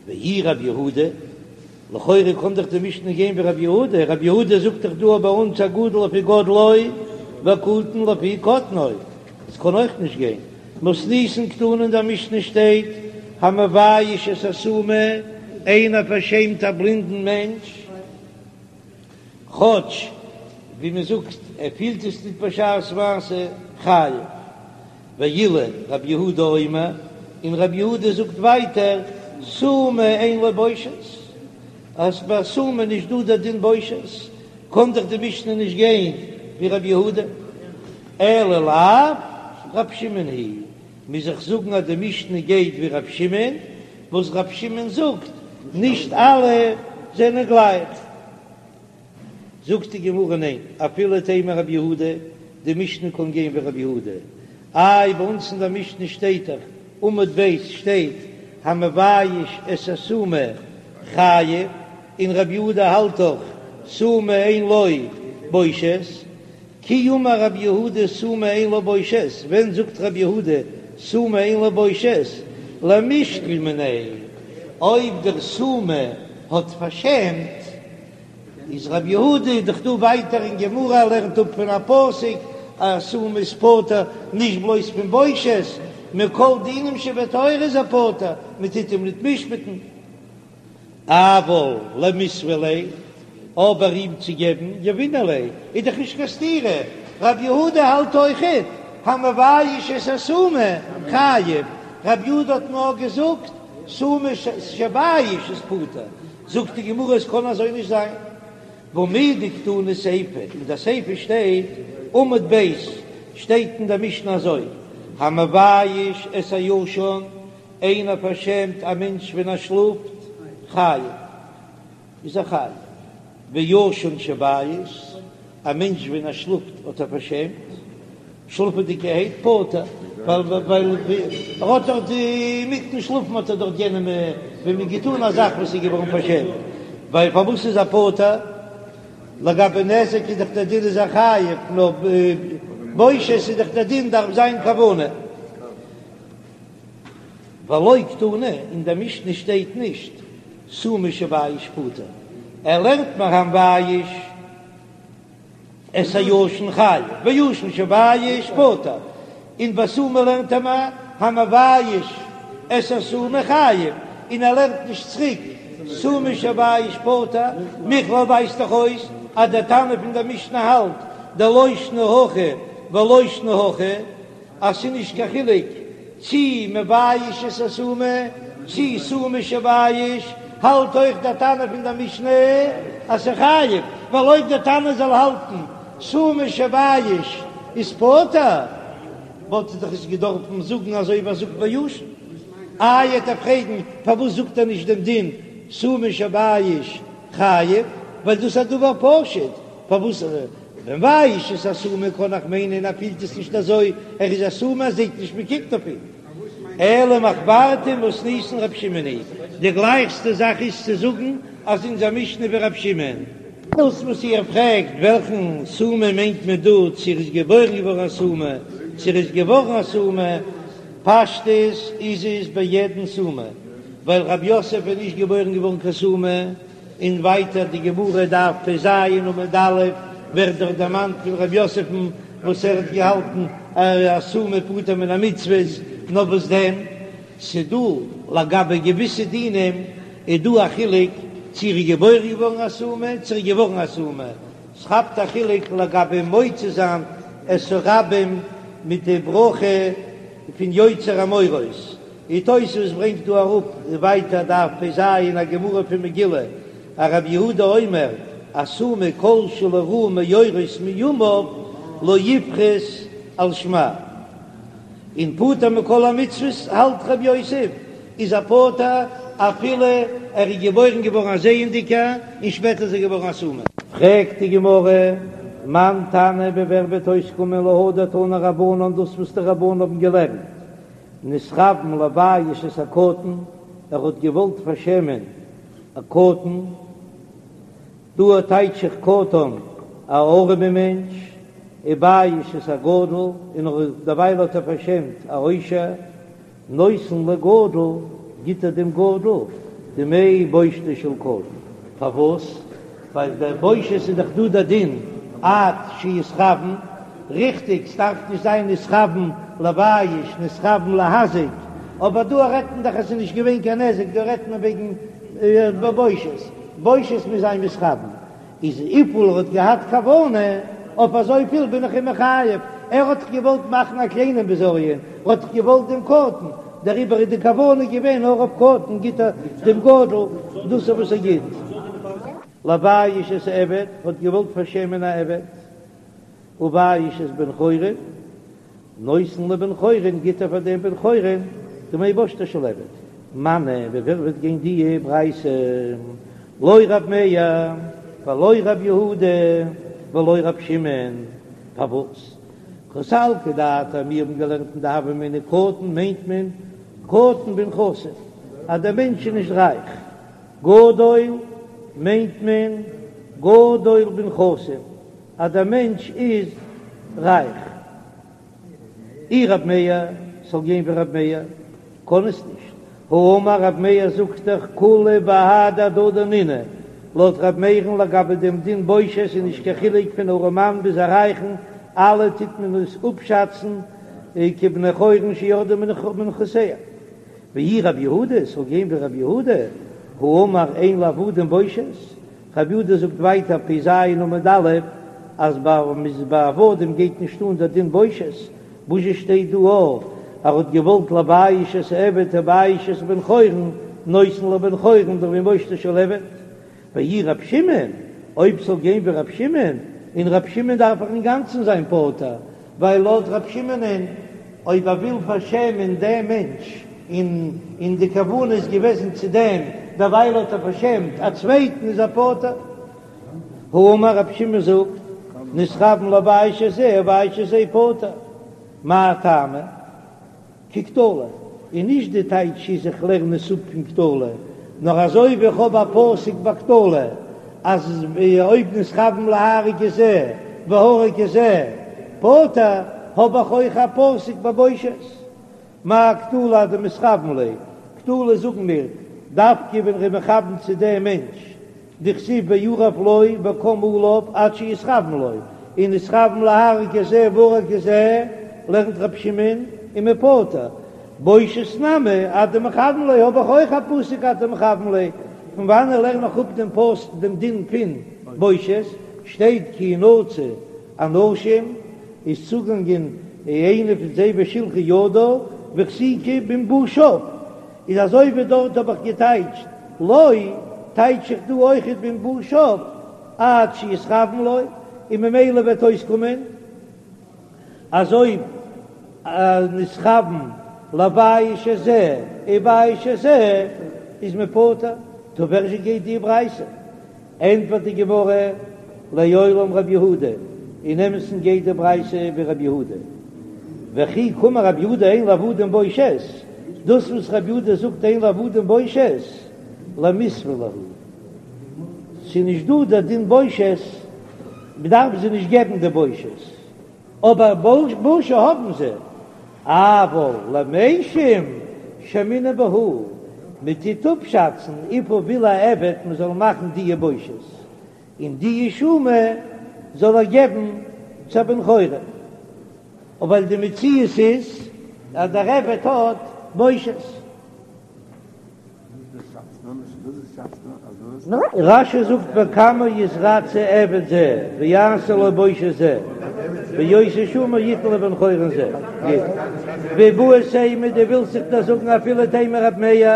ואי רב יהודה, לכאורה קען דאך די משנה גיין ווי רב יהודה, רב יהודה זאגט דאך דא ביי אונז הגדול לפי גודלו והקטן לפי קטנו, עס קען אויך נישט גיין, מתניתין קתני אין דער משנה שטייט המבייש את הסומא, איינער פארשעמט א בלינדן מענטש, כאטש ווי מען זאגט ער פילט עס ניט בשעת מעשה, חייב. ואילו רב יהודה אומר, און רב יהודה זאגט ווייטער, סומא אין לו בושת, אז ביי סומא איז נישט דא דער דין בושת, קען דאך די משנה נישט גיין ווי רב יהודה, אלא לאו רב שמעון היא, מוז איך זאגן אז די משנה גייט ווי רב שמעון, וואס רב שמעון זאגט, נישט אלע זענען גלייך. זאגט די גמרא ניין, אפילו תימא רבי יהודה, די משנה קען גיין ווי רבי יהודה, איי ביי אונז אין דער משנה שטייט דאך, עמוד ב' שטייט המבייש את הסומא חייב, און רבי יהודה האלט דאך סומא אין לו בושת, כי אמר רבי יהודה סומא אין לו בושת, ווען זאגט רבי יהודה סומא אין לו בושת, למישקל מיניה, אויב דער סומא האט פארשעמט, איז רבי יהודה איז דאך דא ווייטער אין גמרא ער לערנט אפ פון א פסוק אז סומא איז פטור נישט בלויז פון בושת, מכל דינים שבתורה איז ער פטור, מען טוט אים ניט משפט'ן. אבל למיתבא ליה, אבער אים צו געבן יהבינן ליה איז דאך נישט קיין סתירה, רבי יהודה האלט אויכעט המבייש את הסומא חייב, רבי יהודה האט נאר געזאגט סומא שבייש איז פטור, זאגט די גמרא עס קען אזוי נישט זיין, והא מדקתני סיפא, אין די סיפא שטייט, עמוד ב', שטייט אין די משנה אזוי, המבייש את הישן, איינער פארשעמט א מענטש ווען ער שלאפט, חייב, איז ער חייב, וישן שבייש, א מענטש ווען ער שלאפט האט ער פארשעמט, שלאפעדיגערהייט פטור, ווייל ווייל ער האט דאך אינמיטן שלאפן האט ער דאך יענעם ווען מען געטאן א זאך וואס איז געווארן פארשעמט, ווייל פארוואס איז ער פטור? לגבי נזק איז דאך דער דין איז ער חייב, נאר בושת איז דאך דער דין דארף זיין כוונה. ולא קתני, אין דער משנה שטייט נישט סומא שבייש פטור, ער לערנט מיר המבייש. את הישן חייב, וישן שבייש פטור, און ביי סומא לערנט ער מיר המבייש את הסומא חייב, און ער לערנט נישט צוריק סומא שבייש פטור, מכלל ווייזט דאך אויס אז דער תנא פון דער משנה האלט דלא שנא הכא ולא שנא הכא. אז ס'איז נישט קיין חילוק צי מבייש את הסומא צי סומא שבייש, האלט אויך דער תנא פון דער משנה אז ס'איז חייב, ווייל אויב דער תנא זאל האלטן סומא שבייש איז פטור, וואלט ער דאך עס געדארפן זאגן אזוי ווי ער זאגט ביי ישן. איי וועט ער פרעגן פארוואס זאגט ער נישט דעם דין סומא שבייש חייב, ווייל דאס איז א דבר פשוט, פארוואס מבייש את הסומא קען איך מיינען ער פילט עס נישט אזוי, ער איז א סומא ער זעט נישט מען קוקט אויף אים. אלא מחוורתא מתניתין רב שמעון היא, די גלייכסטע זאך איז צו זאגן אז אונזער משנה ווי רב שמעון. דאס וואס איר פרעגט וועלכן סומא מיינט מען דא, צו ער איז געבוירן געווארן א סומא, צו ער איז געווארן א סומא, פשטות איז עס ביי יעדן סומא, ווייל רב יוסף איז נישט געבוירן געווארן קיין סומא, און ווייטער די גמרא דף פ"ז עמוד א' ווערט דאך דערמאנט פון ר' יוסף'ן וואס ער האט געהאלטן אז א סומא פטור מן המצוות, נאר וואס דען ס'דא לגבי געוויסע דינים איז דא א חילוק צו ער איז געבוירן געווארן א סומא צו ער איז געווארן א סומא, ס'כאפט א חילוק לגבי מוציא זיין את הרבים מיט די ברכה פון יוצר המאורות. די תוספות ברענגט דא אראפ ווייטער דף פ"ז א גמרא פון מגילה, אז רבי יהודה אומר הסומא כל שלא ראה מאורות מימיו לא יפרוס על שמע, און פטור מכל המצוות האלט רב יוסף איז ער פטור. אפילו ער איז געבוירן געווארן א זעענדיגער און שפעטער איז ער געווארן א סומא. פרעגט די גמרא, מאן תנא ווי ווער וועט אויסקומען להא דתנו רבנן דאס וואס די רבנן האבן געלערנט, נתכוון לבייש את הקטן, ער האט געוואלט פארשעמען א קטן, דא טייטש איך קטן א ארעמע מענטש, ובייש את הגדול, און דערווייל האט ער פארשעמט א עושר. נותן לגדול, גיט ער דעם גדול דמי בושתו של קטן. פארוואס? ווייל דער בושת איז דאך דא דער דין עד שיתכוון, ריכטיג ס'דארף נישט זיין נתכוון לבייש נתכוון להזיק, אבער דא רעדט מען דאך אז ס'איז נישט געווען קיין נזק, דא רעדט מען וועגן בושת, בושת מוז זיין מתכוון, איז וויפיל ער האט געהאט כוונה, אויף אזויפיל בין איך אים מחייב, ער האט דאך געוואלט מאכן א קליינעם בזיון, ער האט דאך געוואלט דעם קטן, דעריבער איז די כוונה געווען נאר אויף קטן, גיט ער דעם גדול דאס וואס ער גיט. לבייש את העבד, האט געוואלט פארשעמען א עבד, ובייש את בן חורין, נותן לבן חורין, גיט ער פאר דעם בן חורין דמי בושתו של עבד. מני, ווי ווער וועט גיין די ברייתא? לא רב מאיר ולא רב יהודה ולא רב שמעון. פארוואס? קא סלקא דעתך, מיר האבן געלערנט אין די הוה אמינא קטן מיינט מען קטן בנכסים, אז דער מענטש איז נישט רייך. גדול מיינט מען גדול בנכסים. אז דער מענטש איז רייך. אי רב מאיר, ס'זאל גיין ווי רב מאיר, קען עס נישט. האמר רב מאיר זאגט דאך כולהו בהדי הדדי נינהו, לויט רב מאיר'ן לגבי דעם דין בושת איז נישט קיין חילוק פון ארעמאן ביז א רייכן, אלע טוט מען עס אפשאצן כבני חורין שירדו מנכסיהם. ואי רב יהודה, ס'זאל גיין ווי רב יהודה, האמר אין לעבדים בושת, רב יהודה זאגט ווייטער פ"ז עמוד א' אז ביי עבדים גייט נישט אן דער דין בושת, וואס זשע שטייט דא אז ער האט געוואלט לבייש את העבד ובייש את בן חורין נותן לבן חורין דמי בושתו של עבד, ואי רב שמעון, אויב ס'זאל גיין ווי רב שמעון, און רב שמעון דארף איך אינגאנצן זיין פטור, ווייל לויט רב שמעונ'ען אויב ער וויל פארשעמען דעם מענטש און און די כוונה איז געוועזן צו דעם, דערווייל האט ער פארשעמט א צווייטן איז ער פטור. האמר רב שמעון זאגט, נתכוון לבייש את זה ובייש את זה פטור. מאי טעמא? כקטלא, און נישט די טייטש איז איך לערן עס אפ פון קטלא, נאר אזוי ווי איך האב א פסוק ביי קטלא אז אויב נתכוון להרוג את זה והרג את זה פטור, האב איך אויך א פסוק ביי בושת. מה קטלא עד דמתכוון ליה, קטלא זאגן מיר דווקא ווען ר'איז מכוון צו דעם מענטש דכתיב וירב לו וקם עליו עד שיתכוון לו, און נתכוון להרוג את זה והרג את זה, לערנט ר' שמעון איז מען פטור, בושת נמי עד דמכוון ליה האב איך אויך א פסוק עד דמכוון ליה, פון וואנען לערן איך אפ דעם פסוק דעם דין פון בושת, שטייט כי ינצו אנשים איז צוגאנגען איינע פון זיי ושלחה ידה והחזיקה במבושיו, איז אזוי ווי דארט האב איך געטייטשט לו, טייטש איך דא אויכעט במבושיו עד שיתכוון לו, און ממילא וועט אויסקומען אז אויב נתכוון לבייש את זה ובייש את זה איז מען פטור, טא ווי זשע גייט די ברייתא? ענטפערט די גמרא, לעולם רב יהודה, אין אמת'ן גייט די ברייתא ווי רב יהודה, וכי קאמר רב יהודה אין לעבדים בושת, דאס וואס רב יהודה זאגט אין לעבדים בושת, למיסבא להו, ס'איז נישט דא דער דין בושת, מ'דארף זיי נישט געבן די בושת. אבער בושה האבן זיי, אבל למשים שיימינן בהו, מען טוט אפשאצן וויפיל וויל א עבד מען זאל מאכן דיע בושות, און דיע שומא זאל ער געבן צו א בן חורין, ווייל די מציאות איז אז דער עבד האט בושות. רש"י זאגט בכמה יתרצה עבד זה ויעשה לו בושת זה ואותה שמה יתן לבן חורין זה גוט ואיבעית אימא דו ווילסט זיך דאס זאגן אפילו תימא רב מאיר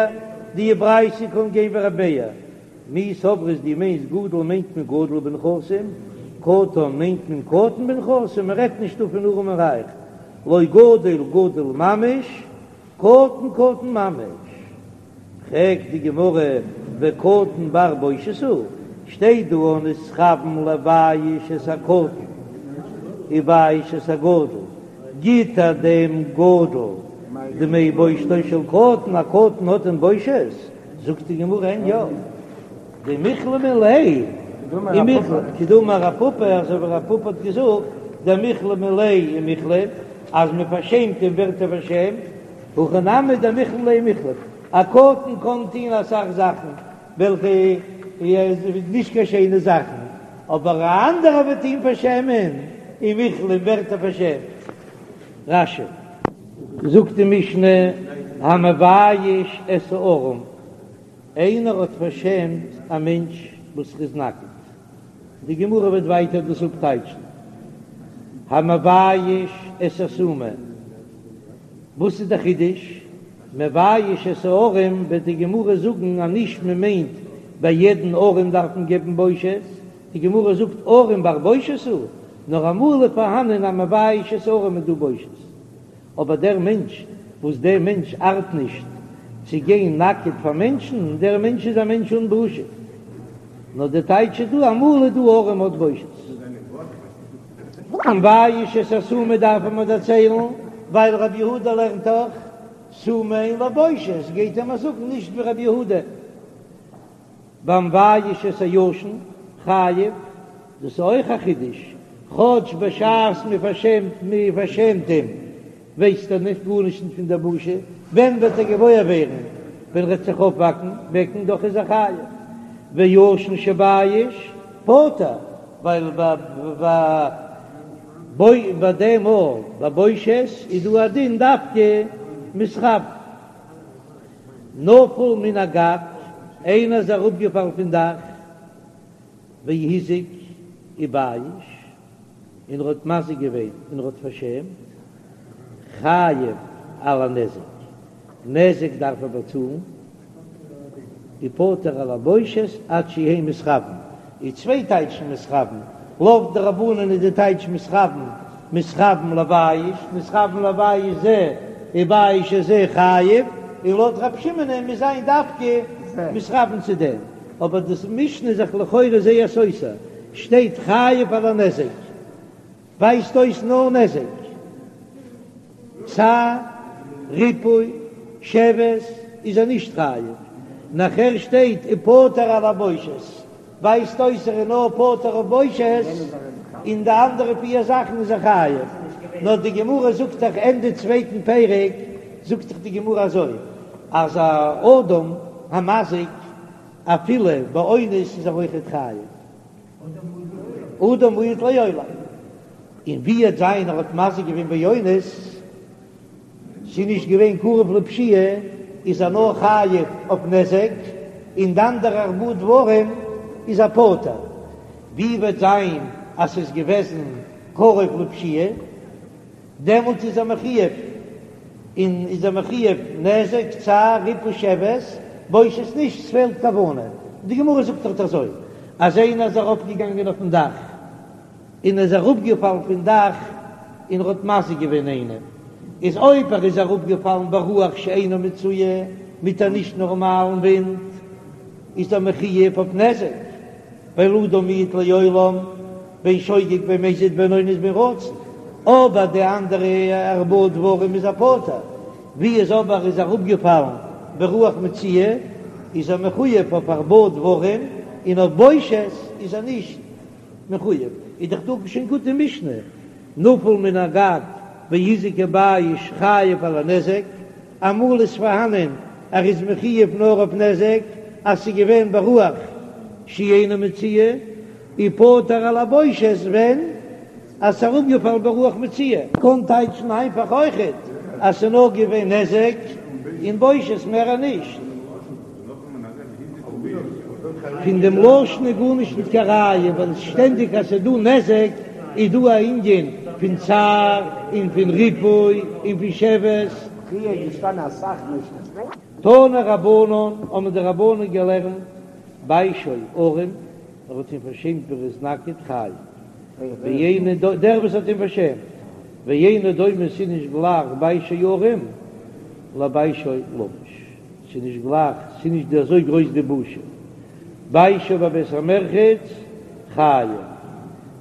די ברייתא קען גיין ווי רב מאיר מי סברת דו מיינסט גדול מיינט מען גדול בנכסים קטן מיינט מען קטן בנכסים מען רעדט נישט דא פון ארעם און רייך לא גדול גדול ממש קטן קטן ממש. פרעגט די גמרא, וקטן בר בושת הוא? שטייט דא נתכוון לבייש את הקטן ובייש את הגדול, גיט ער דעם גדול דמי בושתו של קטן, א קטן האט דען בושת? זאגט די גמרא אין יא, דמיכלמו ליה ומיכלם, כדאמר רב פפא, אזוי ווי רב פפא האט געזאגט, דמיכלמו ליה ומיכלם, אז מען פארשעמט אים ווערט ער פארשעמט, הכא נמי דמיכלמו ליה ומיכלם, א קטן קען טון אסאך זאכן וועלכע איז נישט קיין שיינע זאכן, אבער א אנדערער וועט אים פארשעמען, ומיכלם ווערט ער פארשעמט. רש"י. זאגט די משנה, המבייש את הערום, איינער האט פארשעמט א מענטש וואס איז נאקעט, די גמרא וועט ווייטער דאס אפטייטשן, המבייש את הסומא, וואס איז דער חידוש? מבייש את הערום וועט די גמרא זאגן אז נישט מען מיינט ביי יעדן ערום דארף מען געבן בושת, די גמרא זאגט ערום בר בושת הוא, נאר אמאל איז פארהאנען א מבייש את הערום איז דא בושת, אבער דער מענטש וואס דער מענטש ארט נישט צו גיין נאקעט פאר מענטשן, דער מענטש איז א מענטש אן בושה, נאר די טייטש איז דא אמאל איז דא ערום האט בושת. המבייש את הסומא דארף מען דערציילן, ווייל רבי יהודה לערנט דאך סומא אין לו בושת, גייט ער מיר זאגן נישט ווי רבי יהודה. והמבייש את הישן חייב, דאס איז אויך א חידוש, כאטש בשעת מען פארשעמט מען פארשעמט אים ווייסט ער נישט גארנישט נישט פון דער בושה, ווען וועט ער געוואויר ווערן? ווען ער וועט זיך אויפוואקן וועקן, דאך איז ער חייב. וישן שבייש פטור, ווייל ביי ביי דעם מאל ביי בושת איז דא א דין דווקא מתכוין. נפל מן הגג, איינער איז אראפגעפאלן פון דאך, והזיק ובייש, און ער האט מזיק געווען און ער האט פארשעמט, חייב על הנזק, נזק דארף ער באצאלן, ופטור על הבושת עד שיהא מתכוין, איז צוויי טייטשן מתכוין, לויט די רבנן איז די טייטש מתכוין, מתכוין לבייש, מתכוין לבייש זה ובייש את זה חייב, און לויט רב שמעונ'ען מוז זיין דווקא מתכוין צו דעם, אבער די משנה איז זיך לכאורה זייער סותר, שטייט חייב על הנזק. ווייזט אויס נאר נזק, צער, ריפוי, שבת איז ער נישט חייב, נאכער שטייט ופטור על הבושת, ווייזט אויס ער איז נאר פטור אויף בושת, און די אנדערע פיר זאכן איז ער חייב, נאר די גמרא זאגט דאך ענדע צווייטן פרק זאגט דאך די גמרא אזוי אז א אדם המזיק אפילו באונס איז ער אויכעט חייב. אדם מועד לעולם, און ווי וועט זיין ער האט מזיק געווען באונס, ס'איז נישט געווען קרוב לפשיעה, איז ער נאר חייב אויף נזק, און די אנדערע ארבעה דברים איז ער פטור. ווי וועט זיין אז ס'איז געוועזן קרוב לפשיעה? דעמאלט איז ער מחויב און איז ער מחויב נזק, צער, ריפוי שבת, בושת נישט, ס'פעלט כוונה. די גמרא זאגט דארט אזוי, אז איינער איז ארויפגעגאנגען אויפן דאך און איז אראפגעפאלן פון דאך און ער האט מזיק געווען איינעם, איז אויב ער איז אראפגעפאלן ברוח שאינה מצויה, מיט א נישט נארמאלן ווינט, איז ער מחויב אויף נזק. ווייל אדם מועד לעולם בין שוגג בין מזיד בין אונס בין רצון, אבער די אנדערע ארבעה דברים איז ער פטור, ווי איז אבער איז אראפגעפאלן ברוח מצויה איז ער מחויב אויף ארבעה דברים און אויף בושת איז ער נישט מחויב, איז דאך דא שוין גוט די משנה, נפל מן הגג והזיק ובייש חייב על הנזק, אמאל איז פארהאנען ער איז מחויב נאר אויף נזק אז ס'איז געווען ברוח שאינה מצויה, ופטור על הבושת ווען אז ס'איז אראפגעפאלן ברוח מצויה. קען טייטשן איינפאך אויכעט אז ס'איז נאר געווען נזק און בושת מער נישט. פון דעם לשון איז גארנישט ניט קיין ראיה, ווייל שטענדיג אז ס'איז דא נזק איז דא א ענין פון צער און פון ריפוי און פון שבת. פריער איז געשטאנען אסאך משנה'ס. תנו רבנן, האבן די רבנן געלערנט, ביישו ערום, ער האט אים פארשעמט ווען ער איז נאקעט חייב, ואינו דומה, דער וואס האט אים פארשעמט, ואינו דומה ס'איז נישט גלייך ביישו ערום לביישו לבוש. ס'איז נישט גלייך, ס'איז נישט אזוי גרויס די בושה. ביישו בבית המרחץ חייב,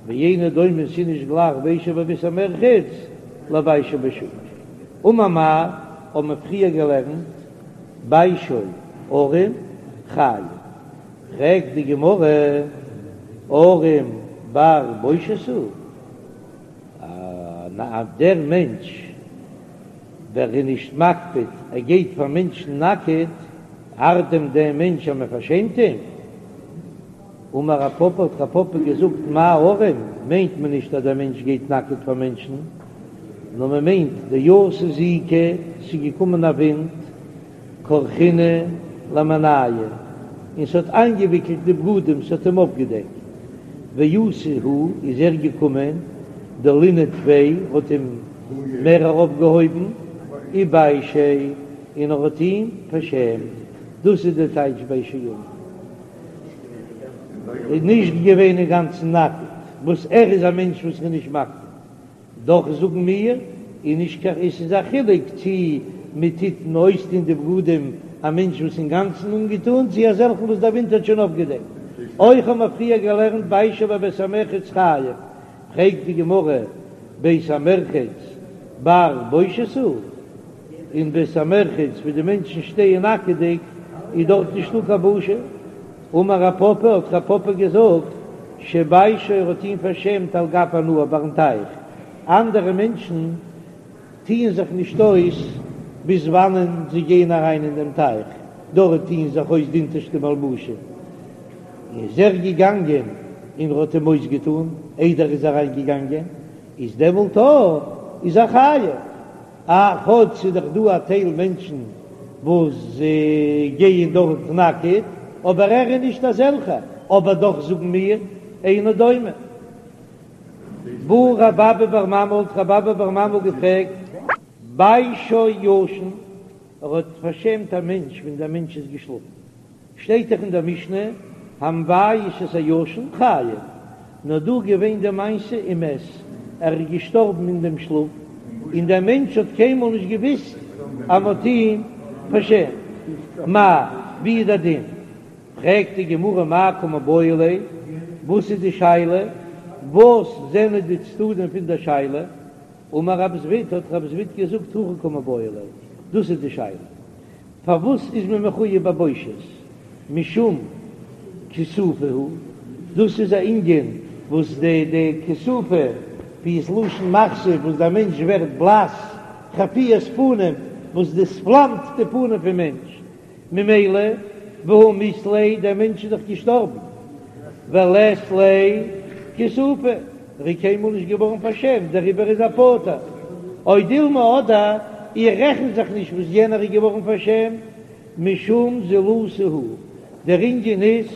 ואינו דומה ס'איז נישט גלייך ביישו בבית המרחץ לביישו בשוק. אמר מר, האבן מיר פריער געלערנט ביישו ערום חייב, פרעגט די גמרא ערום בר בושת הוא, אז דער מענטש וועלכער איז נישט מקפיד ער גייט פאר מענטשן נאקעט, ארט דען דעם מענטש אז מען פארשעמט אים? אמר רב פפא האט רב פפא געזאגט מאי ערום מיינט מען נישט אז דער מענטש גייט נאקעט פאר מענטשן, נאר מען מיינט דאתא זיקא, ס'איז געקומען א ווינט, כרכינהו למינייהו, און ס'האט איינגעוויקלט די בגדים, ס'האט אים אפגעדעקט, ואתא הוא, איז ער געקומען, דלינהו טפי, האט אים מער ארויפגעהויבן, וביישיה, און ער האט אים פארשעמט, דאס איז די טייטש ביישו ערום. איז נישט געווען אינגאנצן נאקעט, וואס ער איז א מענטש וואס איז נישט מקפיד, דאך זאגן מיר, איז נישט קיין עס איז א חילוק צי מען טוט אויסטון די בגדים א מענטש וואס אינגאנצן אנגעטון צי אזעלכן וואס דער ווינט האט שוין אפגעדעקט. אויך האבן מיר פריער געלערנט ביישו בבית המרחץ חייב, פרעגט די גמרא בית המרחץ בר בושת הוא? אין בית המרחץ ווי די מענטשן שטייען נאקעדיג איז דארט נישטא קיין בושה? אמר רב פפא, האט רב פפא געזאגט, שביישו ער האט אים פארשעמט על גב הנהר ביים טייך, אנדערע מענטשן טוען זיך נישט אויס ביז וואנען זיי גייען אריין אין דעם טייך, דארט טוען זיך אויס די אונטערשטע מלבושים, איז ער געגאנגען און ער האט אים אויסגעטאן איידער ער איז אריין געגאנגען, איז דעמאלט איז ער חייב. א כאטש ס'איז דאך דא א טייל מענטשן וואס גייען דארט נאקעט, אבער ער איז נישט אזעלכע, אבער דאך זאגן מיר אינו דומה. בעי רב אבא בר ממל האט רב אבא בר ממל געפרעגט, ביישו ישן, ער האט פארשעמט א מענטש ווען דער מענטש איז געשלאפן. שטייט דאך אין דער משנה, המבייש את הישן חייב, נאר דא געווען די מעשה ומת, ער איז געשטארבן אין דעם שלאף, און דער מענטש האט קיינמאל נישט געוויסט אז מ'האט אים פארשעמט. מהו, ווי איז דער דין? פרעגט די גמרא מאי קא מיבעיא ליה, וואס איז די שאלה? וואס זענען די צדדים פון דער שאלה? אמר רב זביד, האט רב זביד געזאגט, הכי קא מיבעיא ליה, דאס איז די שאלה. פארוואס איז מען מחויב בבושת? משום כיסופא הוא, דאס איז א ענין וואס די די כיסופא ווי איז לשון מחשיף וואס דער מענטש ווערט בלאס, חפיית פנים וואס דאס פלאמט די פנים פון מענטש, ממילא והא מית ליה דער מענטש איז דאך געשטארבן, ולית ליה כיסופא, ער איז קיינמאל נישט געווארן פארשעמט דעריבער איז ער פטור. או דילמא אדער איך רעכן זיך נישט וואס יענער איז געווארן פארשעמט, משום זילותא הוא, דער ענין איז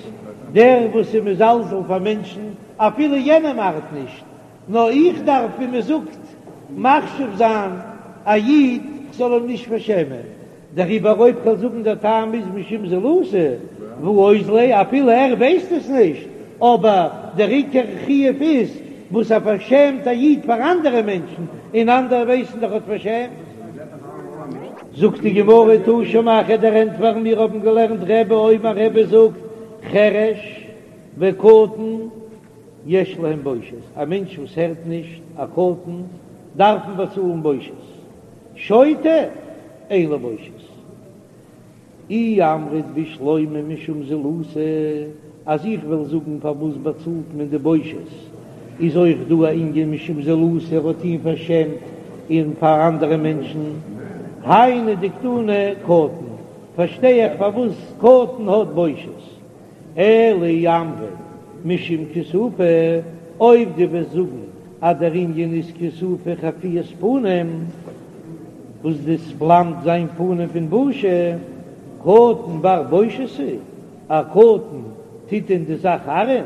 דער וואס איז מזלזל פאר מענטשן אפילו יענעם ארט נישט, נאר איך דארף ווי מען זאגט מחשיב זיין א איד כ'זאל אים נישט פארשעמען, דעריבער אויב כ'וועל זאגן דער טעם איז משום זילותא והא אוזליה אפילו ער ווייסט עס נישט, אבער דער עיקר חיוב איז וואס ער פארשעמט א איד פאר אנדערע מענטשן, און אנדערע ווייסן דאך האט פארשעמט. זאגט די גמרא תא שמע כ'וועל דיר ענטפערן מיר האבן געלערנט רבי אומר רבי זאגט חרש וקטן יש להם בושת, א מענטש וואס הערט נישט, א קטן, דארף מען באצאלן בושת. שוטה אין לו בושת. אי אמרת בשלמא משום זילותא, אז איך וועל זאגן פארוואס באצאלט מען די בושת, איז אויך דא א ענין משום זילותא, ער האט אים פארשעמט און פאר אנדערע מענטשן, היינו דקתני קטן, פארשטיי איך פארוואס קטן האט בושת. אלא אי אמרת משום כיסופא, אויב דו וועסט זאגן אז דער ענין איז כיסופא חפיית פנים, וואס דאס פלאמט זיין פנים פון בושה, קטן בר בושת הוא, א קטן טוט דען די זאך ארען?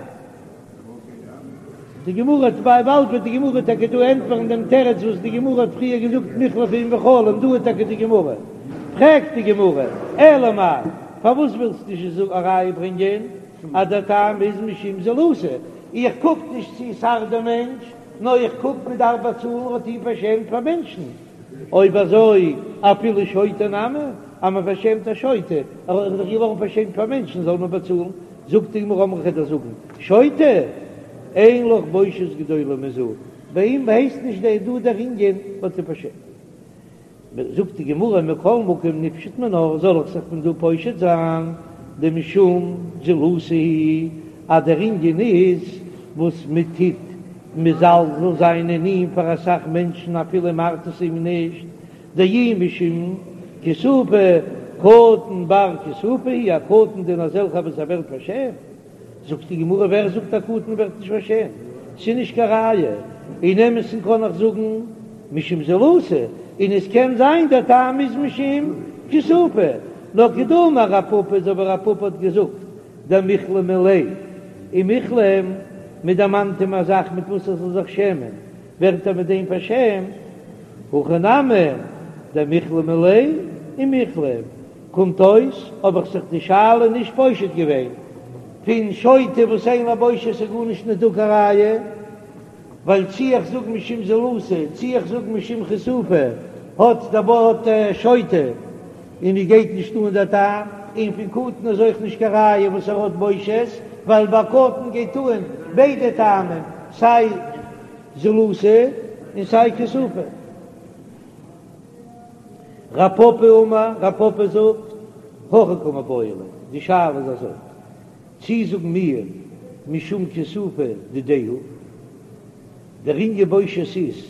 די גמרא האט ביי באלד וועט די גמרא טאקע דא ענטפערן דעם תירוץ וואס די גמרא האט פריער געזאגט מיחלפא עם בחלום, דא איז טאקע די גמרא, פרעגט די גמרא, אלא מאי, פארוואס ווילסטו נישט א ראיה ברענגען אז דער טעם איז משום זילותא, איך קוק נישט צו ס'ארט דעם מענטש, נאר איך קוק מען דארף באצאלן האט אים פארשעמט פאר מענטשן, אויב אזוי אפילו שוטה נמי. אז מען פארשעמט א שוטה, ער איז דאך געווארן פארשעמט פאר מענטשן זאל מען באצאלן, זאגט די גמרא אמרי כ'וועל דיר זאגן, שוטה אין לך בושת גדולה מזו, ביי אים הייסט נישט דער דא דער ענין מ'האט אים פארשעמט. זאגט די גמרא מכל מקום ניפשוט מינה, זאל איך זיך פון דא פושט זיין דמשום זילותא הוא, אז דער ענין איז וואס מען טוט מזלזל זיין אין אים פאר אסאך מענטשן אפילו מ'ארט עס אים נישט, דאי משום כיסופא קטן בר כיסופא הוא, א קטן דען אזעלכע וואס ער ווערט פארשעמט. זאגט די גמרא ווער זאגט א קטן ווערט נישט פארשעמט? ס'איז נישט קיין ראיה, אין אמת'ן קען איך זאגן משום זילותא, און עס קען זיין דער טעם איז משום כיסופא, נאר כדאמר רב פפא אזוי ווי רב פפא האט געזאגט דמיכלמו ליה ומיכלם, מען דערמאנט אים א זאך מיט וואס ער זאל זיך שעמען, ווערט ער מיט דעם פארשעמט, הכא נמי דמיכלמו ליה ומיכלם, קומט אויס האב איך זיך די שאלה נישט פושט געווען פון שוטה וואס אין לו בושת איז גארנישט נישט דא קיין ראיה, ווייל צי איך זאג משום זילותא צי איך זאג משום כיסופא האט דער ווארט שוטה און מיר גייט נישט אן דער טעם, און פון קטן איז אויך נישט קיין ראיה וואס ער האט בושת, ווייל ביי קטן גייט אן ביידע טעמים סיי זילותא און סיי כיסופא. רב פפא אמר, רב פפא זאגט, הכי קא מיבעיא ליה, די שאלה איז אזוי, צי זאגן מיר משום כיסופא דידיה הוא, דער ענין בושת איז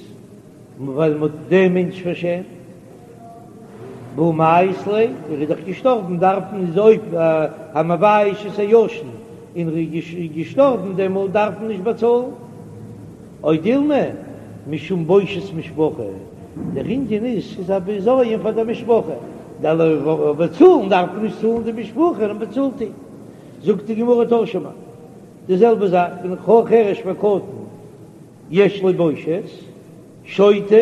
ווייל מ'האט דעם מענטש פארשעמט, והא מיית ליה, ער איז דאך געשטארבן, דארף מען איז אויב המבייש את הישן און ער איז געשטארבן דעמאלט דארף מען נישט באצאלן. או דילמא משום בושת משפחה, דער ענין איז ס'איז א בזיון פאר דער משפחה, דערווייל באצאלן דארף מען נישט צאלן די משפחה נאר מ'באצאלט אים. זאגט די גמרא תא שמע, די זעלבע זאך פון חרש וקטן יש לו בושת, שוטה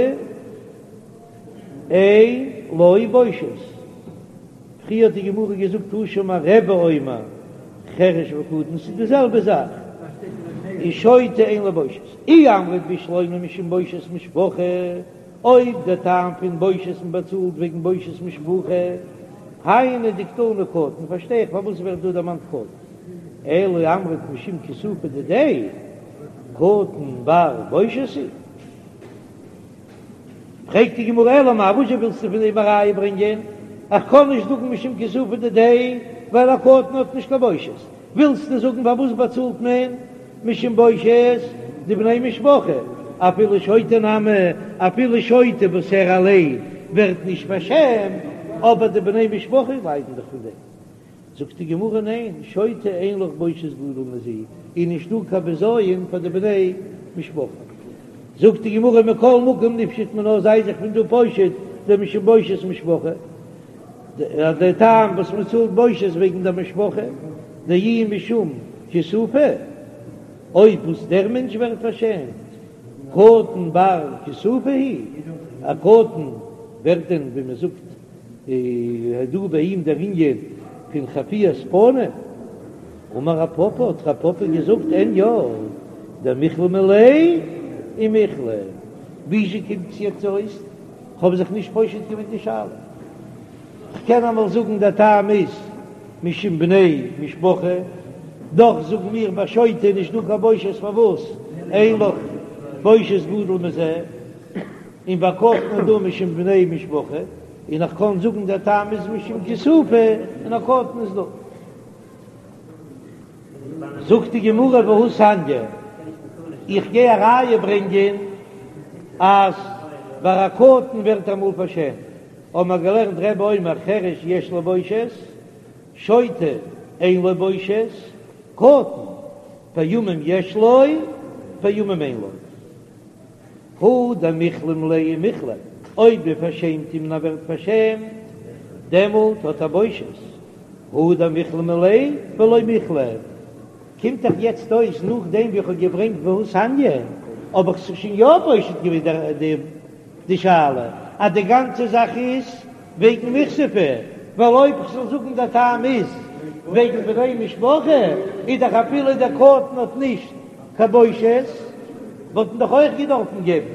אין לו בושת. פריער האט די גמרא געזאגט תא שמע רבי אומר חרש וקטן ס'איז די זעלבע זאך און שוטה אין לו בושת אי אמרת בשלמא משום בושת משפחה אויב דער טעם פון בושת מען באצאלט וועגן בושת משפחה היינו דקתני קטן פארשטיי איך פארוואס ווערט דא דערמאנט קטן אלא אמרת משום כיסופא דידיה קטן בר בושת הוא. פרעגט די גמרא אלא מאי וואזשע ווילסטו פון דעם א ראיה ברענגען? איך קען נישט זאגן משום כיסופא דידיה ווייל א קטן האט נישט קיין בושת, ווילסטו זאגן פארוואס באצאלט מען משום בושת דבני משפחה אפילו שוטה נמי אפילו שוטה וואס ער אליין ווערט נישט פארשעמט אבער די בני משפחה ליידן דאך פון דעם. זאגט די גמרא ניין, שוטה אין לך בושת גדול מזו, איז נישט דא קיין בזיון פאר די בני משפחה. זאגט די גמרא מכל מקום ניפשוט מינה זיי זיך פון דא פושט דמשום בושת משפחה, דער טעם וואס מען צאלט בושת וועגן די משפחה, דאי משום כיסופא, אויב וואס דער מענטש ווערט פארשעמט, קטן בר כיסופא הוא, א קטן ווערט דען ווי מען זאגט איז דא ביי אים דער ענין פון חפיית פנים? אמר רב פפא, האט רב פפא געזאגט, אין יא, דמיכלמו ליה ומיכלם. וויאזוי קומט עס יעצט אויס? כ'האב זיך נישט פושט געווען די שאלה. כ'קען אמאל זאגן דער טעם איז משום בני משפחה, דאך זאגן מיר ביי שוטה איז נישט דא קיין בושת פארוואס אין לך בושת גדול מזה. און ביי קטן איז דא משום בני משפחה, און איך קען זאגן דער טעם איז משום כיסופא, און א קטן איז דא. זאגט די גמרא והתניא, איך גיי א ראיה ברענגען אז ביי א קטן ווערט אמאל פארשעמט, האבן מיר געלערנט רבי אומר חרש יש לו בושת, שוטה אין לו בושת, קטן פעמים יש לו פעמים אין לו. הא דמיכלמו ליה ומיכלם, אויב מען פארשעמט אים און ער ווערט פארשעמט, דעמאלט האט ער בושת, הא דמיכלמו ליה ולא מיכלם. קומט דאך יעצט אויס נאכדעם ווי איך האב געברענגט והתניא, האב איך זיך שוין יא פושט געווען די שאלה אז די גאנצע זאך איז וועגן מיכספא, ווייל אויב כ'זאל זאגן דער טעם איז וועגן בני משפחה, איז דאך אפילו דער קטן האט נישט קיין בושת, וואלט מען דאך אויך געדארפן געבן,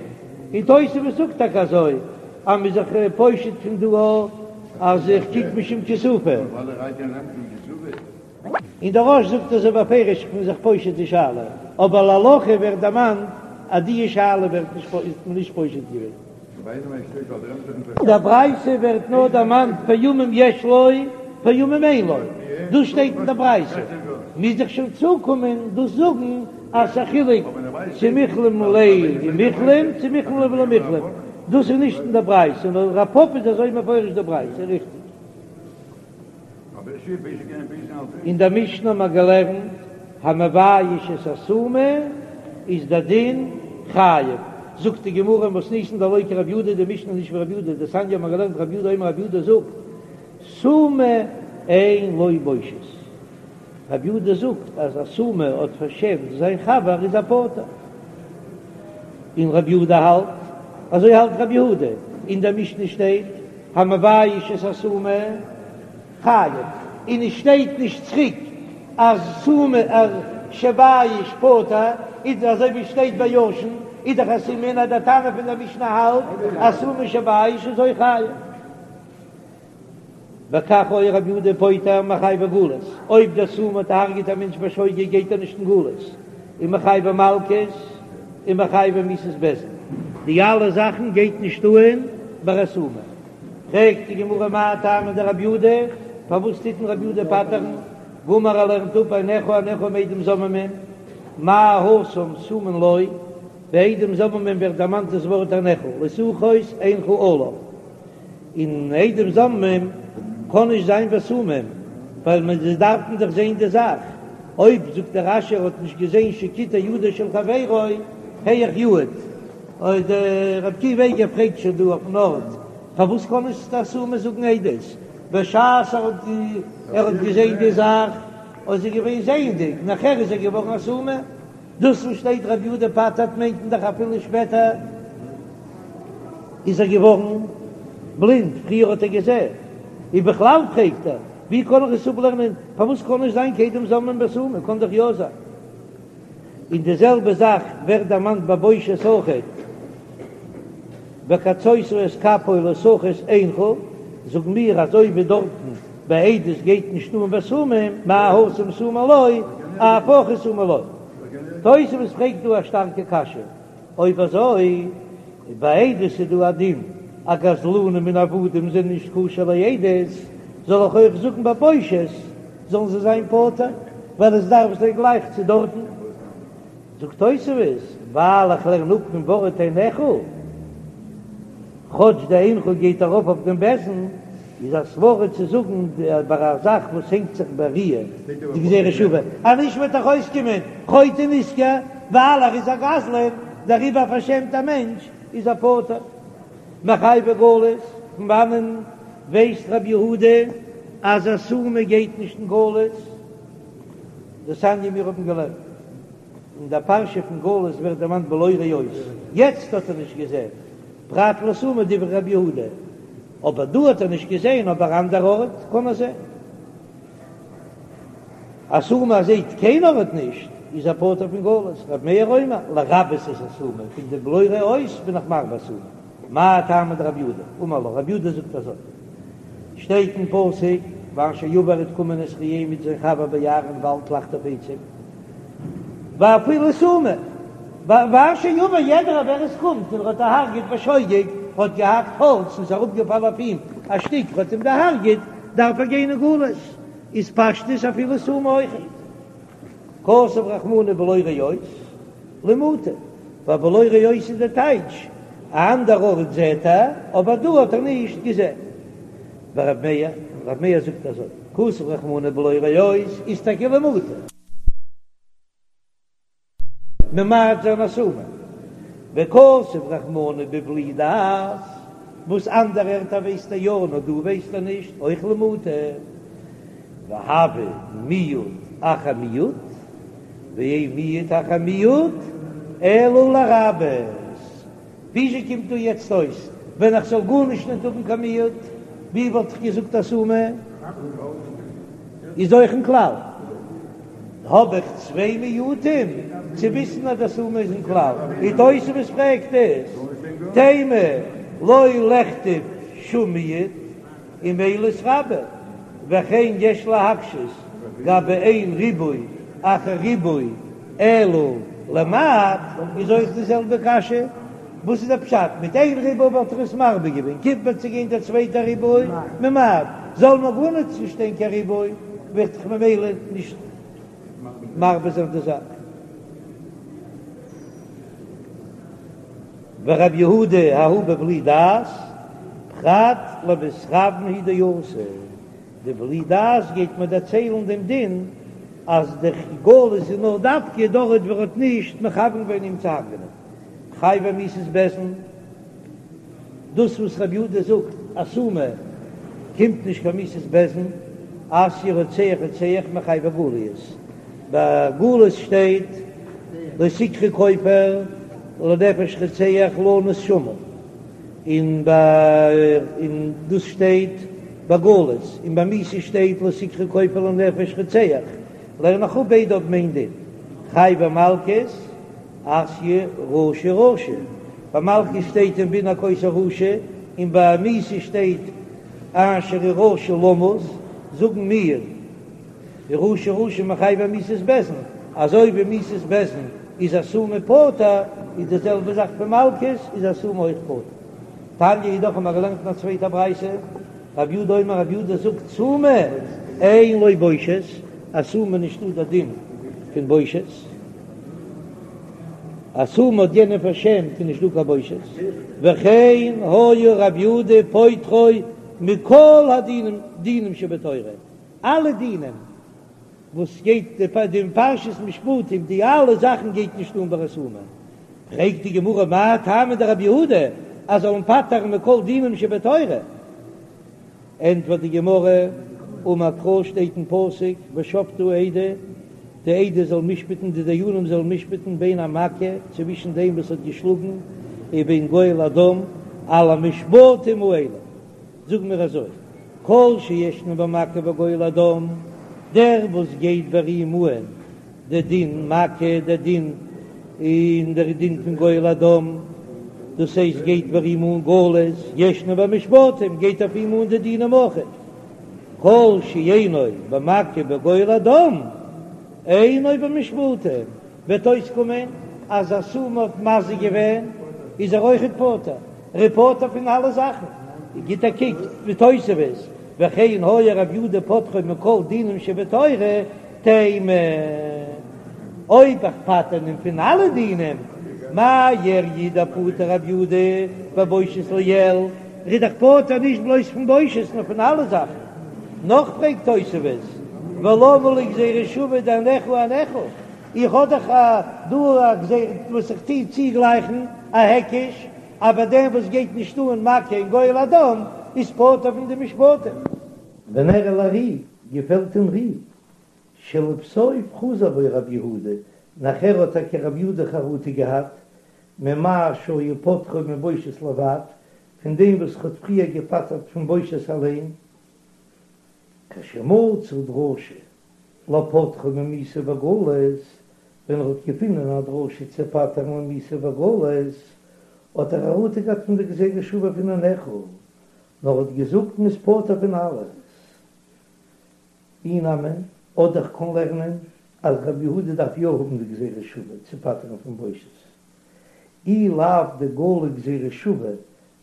און תוספות זאגט טאקע אזוי אז מ'איז זיך פושט פון דא. אז איך קוק משום כיסופא. און דער רא"ש זאגט אזוי בפירוש איך בין זיך פושט די שאלה, אבער להלכה ווערט דערמאנט אז די שאלה ווערט נישט איז מען נישט פושט געווען. אין דער ברייתא ווערט נאר דערמאנט פעמים יש לו פעמים אין לו, דאס שטייט אין דער ברייתא, מוז איך שוין צוקומען דאס זאגן אז ס'איז א חילוק צו מיחלם ליה ומיחלם צו מיחלם ליה ולא מיחלם, דאס איז נישט אין דער ברייתא, נאר רב פפא איז אזוי מפרש די ברייתא, ריכטיג? אין דער משנה האט מען געלערנט המבייש את הסומא איז דער דין חייב, זאגט די גמרא מתניתין דלא כרבי יהודה, די משנה איז נישט ווי רבי יהודה, דתניא האט מען געלערנט רבי יהודה אומר רבי יהודה זאגט סומא אין לו בושת, רבי יהודה זאגט אז א סומא האט פארשעמט זיין חבר איז ער פטור, און רבי יהודה האלט אזוי האלט רבי יהודה, אין דער משנה שטייט המבייש את הסומא חייב, און עס שטייט נישט צוריק אז סומא אז שבייש פטור, איז אזוי ווי שטייט ביי ישן, איז דאך א סימן אז דער תנא פון דער משנה האלט אז סומא שבייש איז אויך חייב. וכך היה רבי יהודה פוטר מחייבי גלות, אויב דער סומא האט דערהרגעט א מענטש בשוגג גייט ער נישט אין גלות, און מחייבי מלקות, און מחייבי מיתות בית דין, די אלע זאכן גייט נישט אהן ביי א סומא. פרעגט די גמרא מאי טעמא דרבי יהודה, פארוואס טוט מען רבי יהודה פטר'ן? גמר ער לערנט אפ עיניך עיניך מעדים זוממין, מה התם סומין לו, ביי עדים זוממין ווערט דערמאנט דאס ווארט עיניך, לא תחוס עינך עליו. און עדים זוממים קען נישט זיין בסומים, ווייל מען זיי דארפן דאך זען די זאך, אויב זאגט דער רש"י ער האט נישט געזען שקיטע ידו של חברו היאך יעיד, אוי דער רבי עקיבא איגר פרעגט שוין דא אויפן ארט פארוואס קען נישט א סומא זאגן עדות בשעת ער האט ער האט געזען די זאך איז ער געווען זעענדיג נאכער איז ער געווארן א סומא. דאס וואס שטייט רבי יהודה פטר'ט מיינט מען דאך אפילו שפעטער איז ער געווארן בלינד, פריער האט ער געזען. און בכלל פרעגט ער, ווי קען איך עס אפלערנען, פארוואס קען נישט זיין קיין עדים זוממין בסומא, קען דאך יא זיין. און די זעלבע זאך ווערט דערמאנט ביי בושת אויכעט, וקצות את כפו לא תחוס עינך, זאגן מיר אזוי ווי דארטן ביי עדות גייט נישט אן בסומא, מה התם סומין לו, אף הכא סומין לו. תוספות פרעגט דא א שטארקע קשיא, אויב אזוי ביי עדות איז דא א דין אז גזלנים און עבדים זענען נישט כשר לעדות, זאל איך אויך זאגן ביי בושת זאלן זיי זיין פטור, ווייל עס דארף זיין גלייך צו דארטן? זאגט תוספות, ווייל איך לערן אפ פון ווארט עיניך, כאטש די עינך גייט ארויף אויף דעם בית דין, איז א סברא צו זאגן ביי א זאך וואס הענגט זיך בראיה די גזירה שוה, אז נישט וועט דאך אויסקומען חוטא נשכר, ווייל ער איז א גזלן, דעריבער פארשעמט א מענטש איז ער פטור. מחייבי גלות, פון וואנען ווייסט רבי יהודה אז א סומא גייט נישט אין גלות? דתניא מיר האבן געלערנט אין דער פרשה פון גלות ווערט דערמאנט בלא ראות, יעצט האט ער נישט געזען, פרט לסומא דברי רבי יהודה, אבער דא האט ער נישט געזען, אבער אנדער ארט קען ער זען. א סומא זעט קיין ארט נישט, איז ער פטור פון גלות, רבי מאיר אומר, לרבות את הסומא, פון די בלא ראות בין איך מרבה סומא. מאי טעמא דרבי יהודה? אמר לך, רבי יהודה זאגט אזוי, שטייט אין פסוק, ואשר יבא וועט קומען את רעהו מיט זיין חבר ביער אין וואלד לחטוב עצים, ואפילו סומא, ואשר יבא יעדער ווער עס קומט און ער האט דערהרגעט בשוגג, האט געהאקט האלץ און ס'איז אראפגעפאלן אויף אים א שטיק האט אים דערהרגעט, דארף ער גיין אין גלות, איז פשטות אפילו סומא אויכעט. כתב רחמנא בלא ראות למעוטי, ווייל בלא ראות איז די טייטש, א אנדער ארט זעט ער, אבער דא האט ער נישט געזען. ורב מאיר, רב מאיר זאגט אזוי, כתב רחמנא בלא ראות איז טאקע למעוטי. ממעט זיין א סומא. וכתב רחמנא בבלי דעת, וואס אנדערע ערטער ווייסט ער יא נאר דא ווייסט ער נישט, אויך למעוטי. והוי מיעוט אחר מיעוט, ואין מיעוט אחר מיעוט אלא לרבות. וויאזוי קומט דא יעצט אויס ווען איך זאל גארנישט נישט האבן קיין מיעוט, ווי וואלט איך געזאגט א סומא איז אויך אין כלל? האב איך צוויי מיעוטים צו וויסן אז די סומא איז אין כלל? און תוספות פרעגט עס, תימה לא לכתוב שום מיעוט. און ממילא איז רבה, וכן יש להקשות גבי אין ריבוי אחר ריבוי אלא למעט, איז אויך די זעלבע קשיא, וואס איז דער פשט? מיט איין ריבוי וואלט ער עס מרבה געווען, קומט מען צו גיין דער צווייטער ריבוי ממעט, זאל מען גארנישט נישט שטיין קיין ריבוי, וועט דאך ממילא נישט מרבה זיין די זאך. ורב יהודה ההוא בבלי דעת, פרט למתכוין הוא דאתא, די בלי דעת גייט מיר דערציילן דעם דין אז די גלות איז נאר דווקא דארט וואו ער האט נישט מכוון געווען אים צו הרג'נען. חייבי מיתות בית דין, דאס וואס רב יהודה זאגט אז סומא קומט נישט קיין מיתת בית דין, אתיא רוצח רוצח מחייבי גליות, ביי גלות שטייט לא תקחו כופר לנפש רוצח לנוס שמה, און ביי און דאס שטייט ביי גלות, און ביי מיתה שטייט לא תקחו כופר לנפש רוצח, לערן איך אפ ביידע האבן איין דין, חייבי מלקות. אתיא רשע רשע, ביי מלקות שטייט אם בן הכות הרשע, און ביי מיתה שטייט אשר הוא רשע למות, זאגן מיר רשע רשע מחייבי מיתות בית דין, אזוי ווי מיתת בית דין איז א סומא פטור, איז די זעלבע זאך פון מלקות איז א סומא אויך פטור. תניא אידך האבן מיר געלערנט אין א צווייטע ברייתא, רב יהודה אומר רב יהודה זאגט סומא אין לו בושת, א סומא נישטא דער דין פון בושת. א סומא האט יענעם פארשעמט איז נישט דא קיין בושת, וכן היה רב יהודה פוטרו מכל הדינים דינים שבתורה, אלע דינים וואס גייט די פרשת משפטים די אלע זאכן גייט נישט אן ביי א סומא, פרעגט די גמרא מאי טעמא דרב יהודה אז זאל אים פטר'ן מכל דינים שבתורה? ענטפערט די גמרא, אמר קרא שטייט אין פסוק ושפטו העדה, די עדה זאל משפט'ן, די דיינים זאלן משפט'ן בין המכה, צווישן דעם וואס האט געשלאגן, ובין גואל הדם, על המשפטים האלה, זאג מיר אזוי, כל שישנו במכה וגואל הדם, דער וואס גייט ביי אים אן די דין מכה, די דין און דער דין פון גואל הדם, דאס הייסט גייט ביי אים אן גלות, ישנו במשפטים, גייט אויף אים אן די דינים אויכעט, כל שאינו במכה ובגואל הדם, אינו במשפטים, וועט אויסקומען אז א סומא האט מזיק געווען, איז ער אויכעט פטור, ער איז פטור פון אלע זאכן, גיט א קוק די תוספות, וכן היה רב יהודה פוטרו מכל דינים שבתורה, תימה, אויב איך פטר אים פון אלע דינים, מאי איריא דפטר רב יהודה בבושת לעיל, ער איז דאך פטור נישט בלויז פון בושת נאר פון אלע זאכן. נאך פרעגט תוספות, ולמה לי גזירה שווה דאינך אינך, איך האב דאך דא א גזירה וואס איך טוה צוגלייכן א היקש, אז ביי דעם וואס גייט נישט אן מכה און גואל הדם איז פטור פון די משפטים. ונראה לר"י, געפעלט דעם ר"י, שלבסוף חזר בו רב יהודה, נאכער האט טאקע רב יהודה חרטה געהאט, ממה שהיה פוטרו מבושת לבד, פון דעם וואס ער האט פריער געפטר'ט פון בושת אליין, כשמצא דרשה לפוטרו ממיתה וגלות, ווען ער האט געפונען א דרשה צו פטר'ן ממיתה וגלות, האט ער חרטה געהאט פון די גזירה שוה פון אינך, נאר האט געזאגט מ'איז פטור פון אלעס. אי נמי, אדער כ'קען לערנען אז רבי יהודה דארף יא האבן די גזירה שוה צו פטר'ן פון בושת. אי לאו דגלי גזירה שוה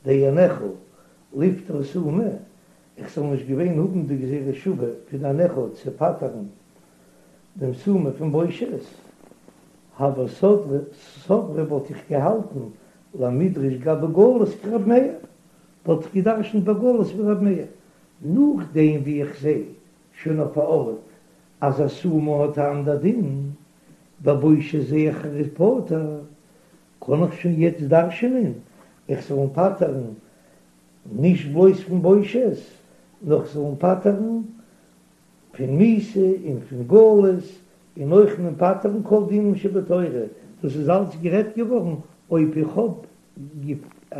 דאינך לפטור סומא, איך זאל נישט געווען האבן די גזירה שוה פון אינך צו פטר'ן דעם סומא פון בושת, הוה סברי וואלט איך געהאלטן למידרש גבי גלות כרב מאיר, וואלט איך געדרשנט ביי גלות ווי רב מאיר, נאכדעם ווי איך זע שוין אויף א ארט אז א סומא האט א אנדער דין, ביי בושת זע איך ער איז פטור, קען איך שוין יעצט דרש'נען איך זאל אים פטר'ן נישט בלויז פון בושת, נאר איך זאל אים פטר'ן פון מיתה און פון גלות, און אויך אים פטר'ן כל דינים שבתורה, דאס איז אלץ גערעדט געווארן אויב איך האב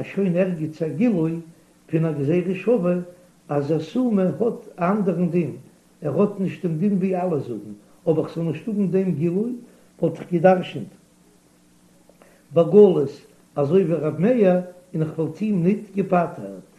שוין ערגעץ א גילוי פון א גזירה שווה אז א סומא האט א אנדערן דין, ער האט נישט דעם דין ווי אלע זאגן, אויב איך זאל נישט האבן דעם גילוי וואלט איך גע'דרש'נט בגלות אזוי ווי ר' מאיר און איך וואלט אים ניט געפטר'ט.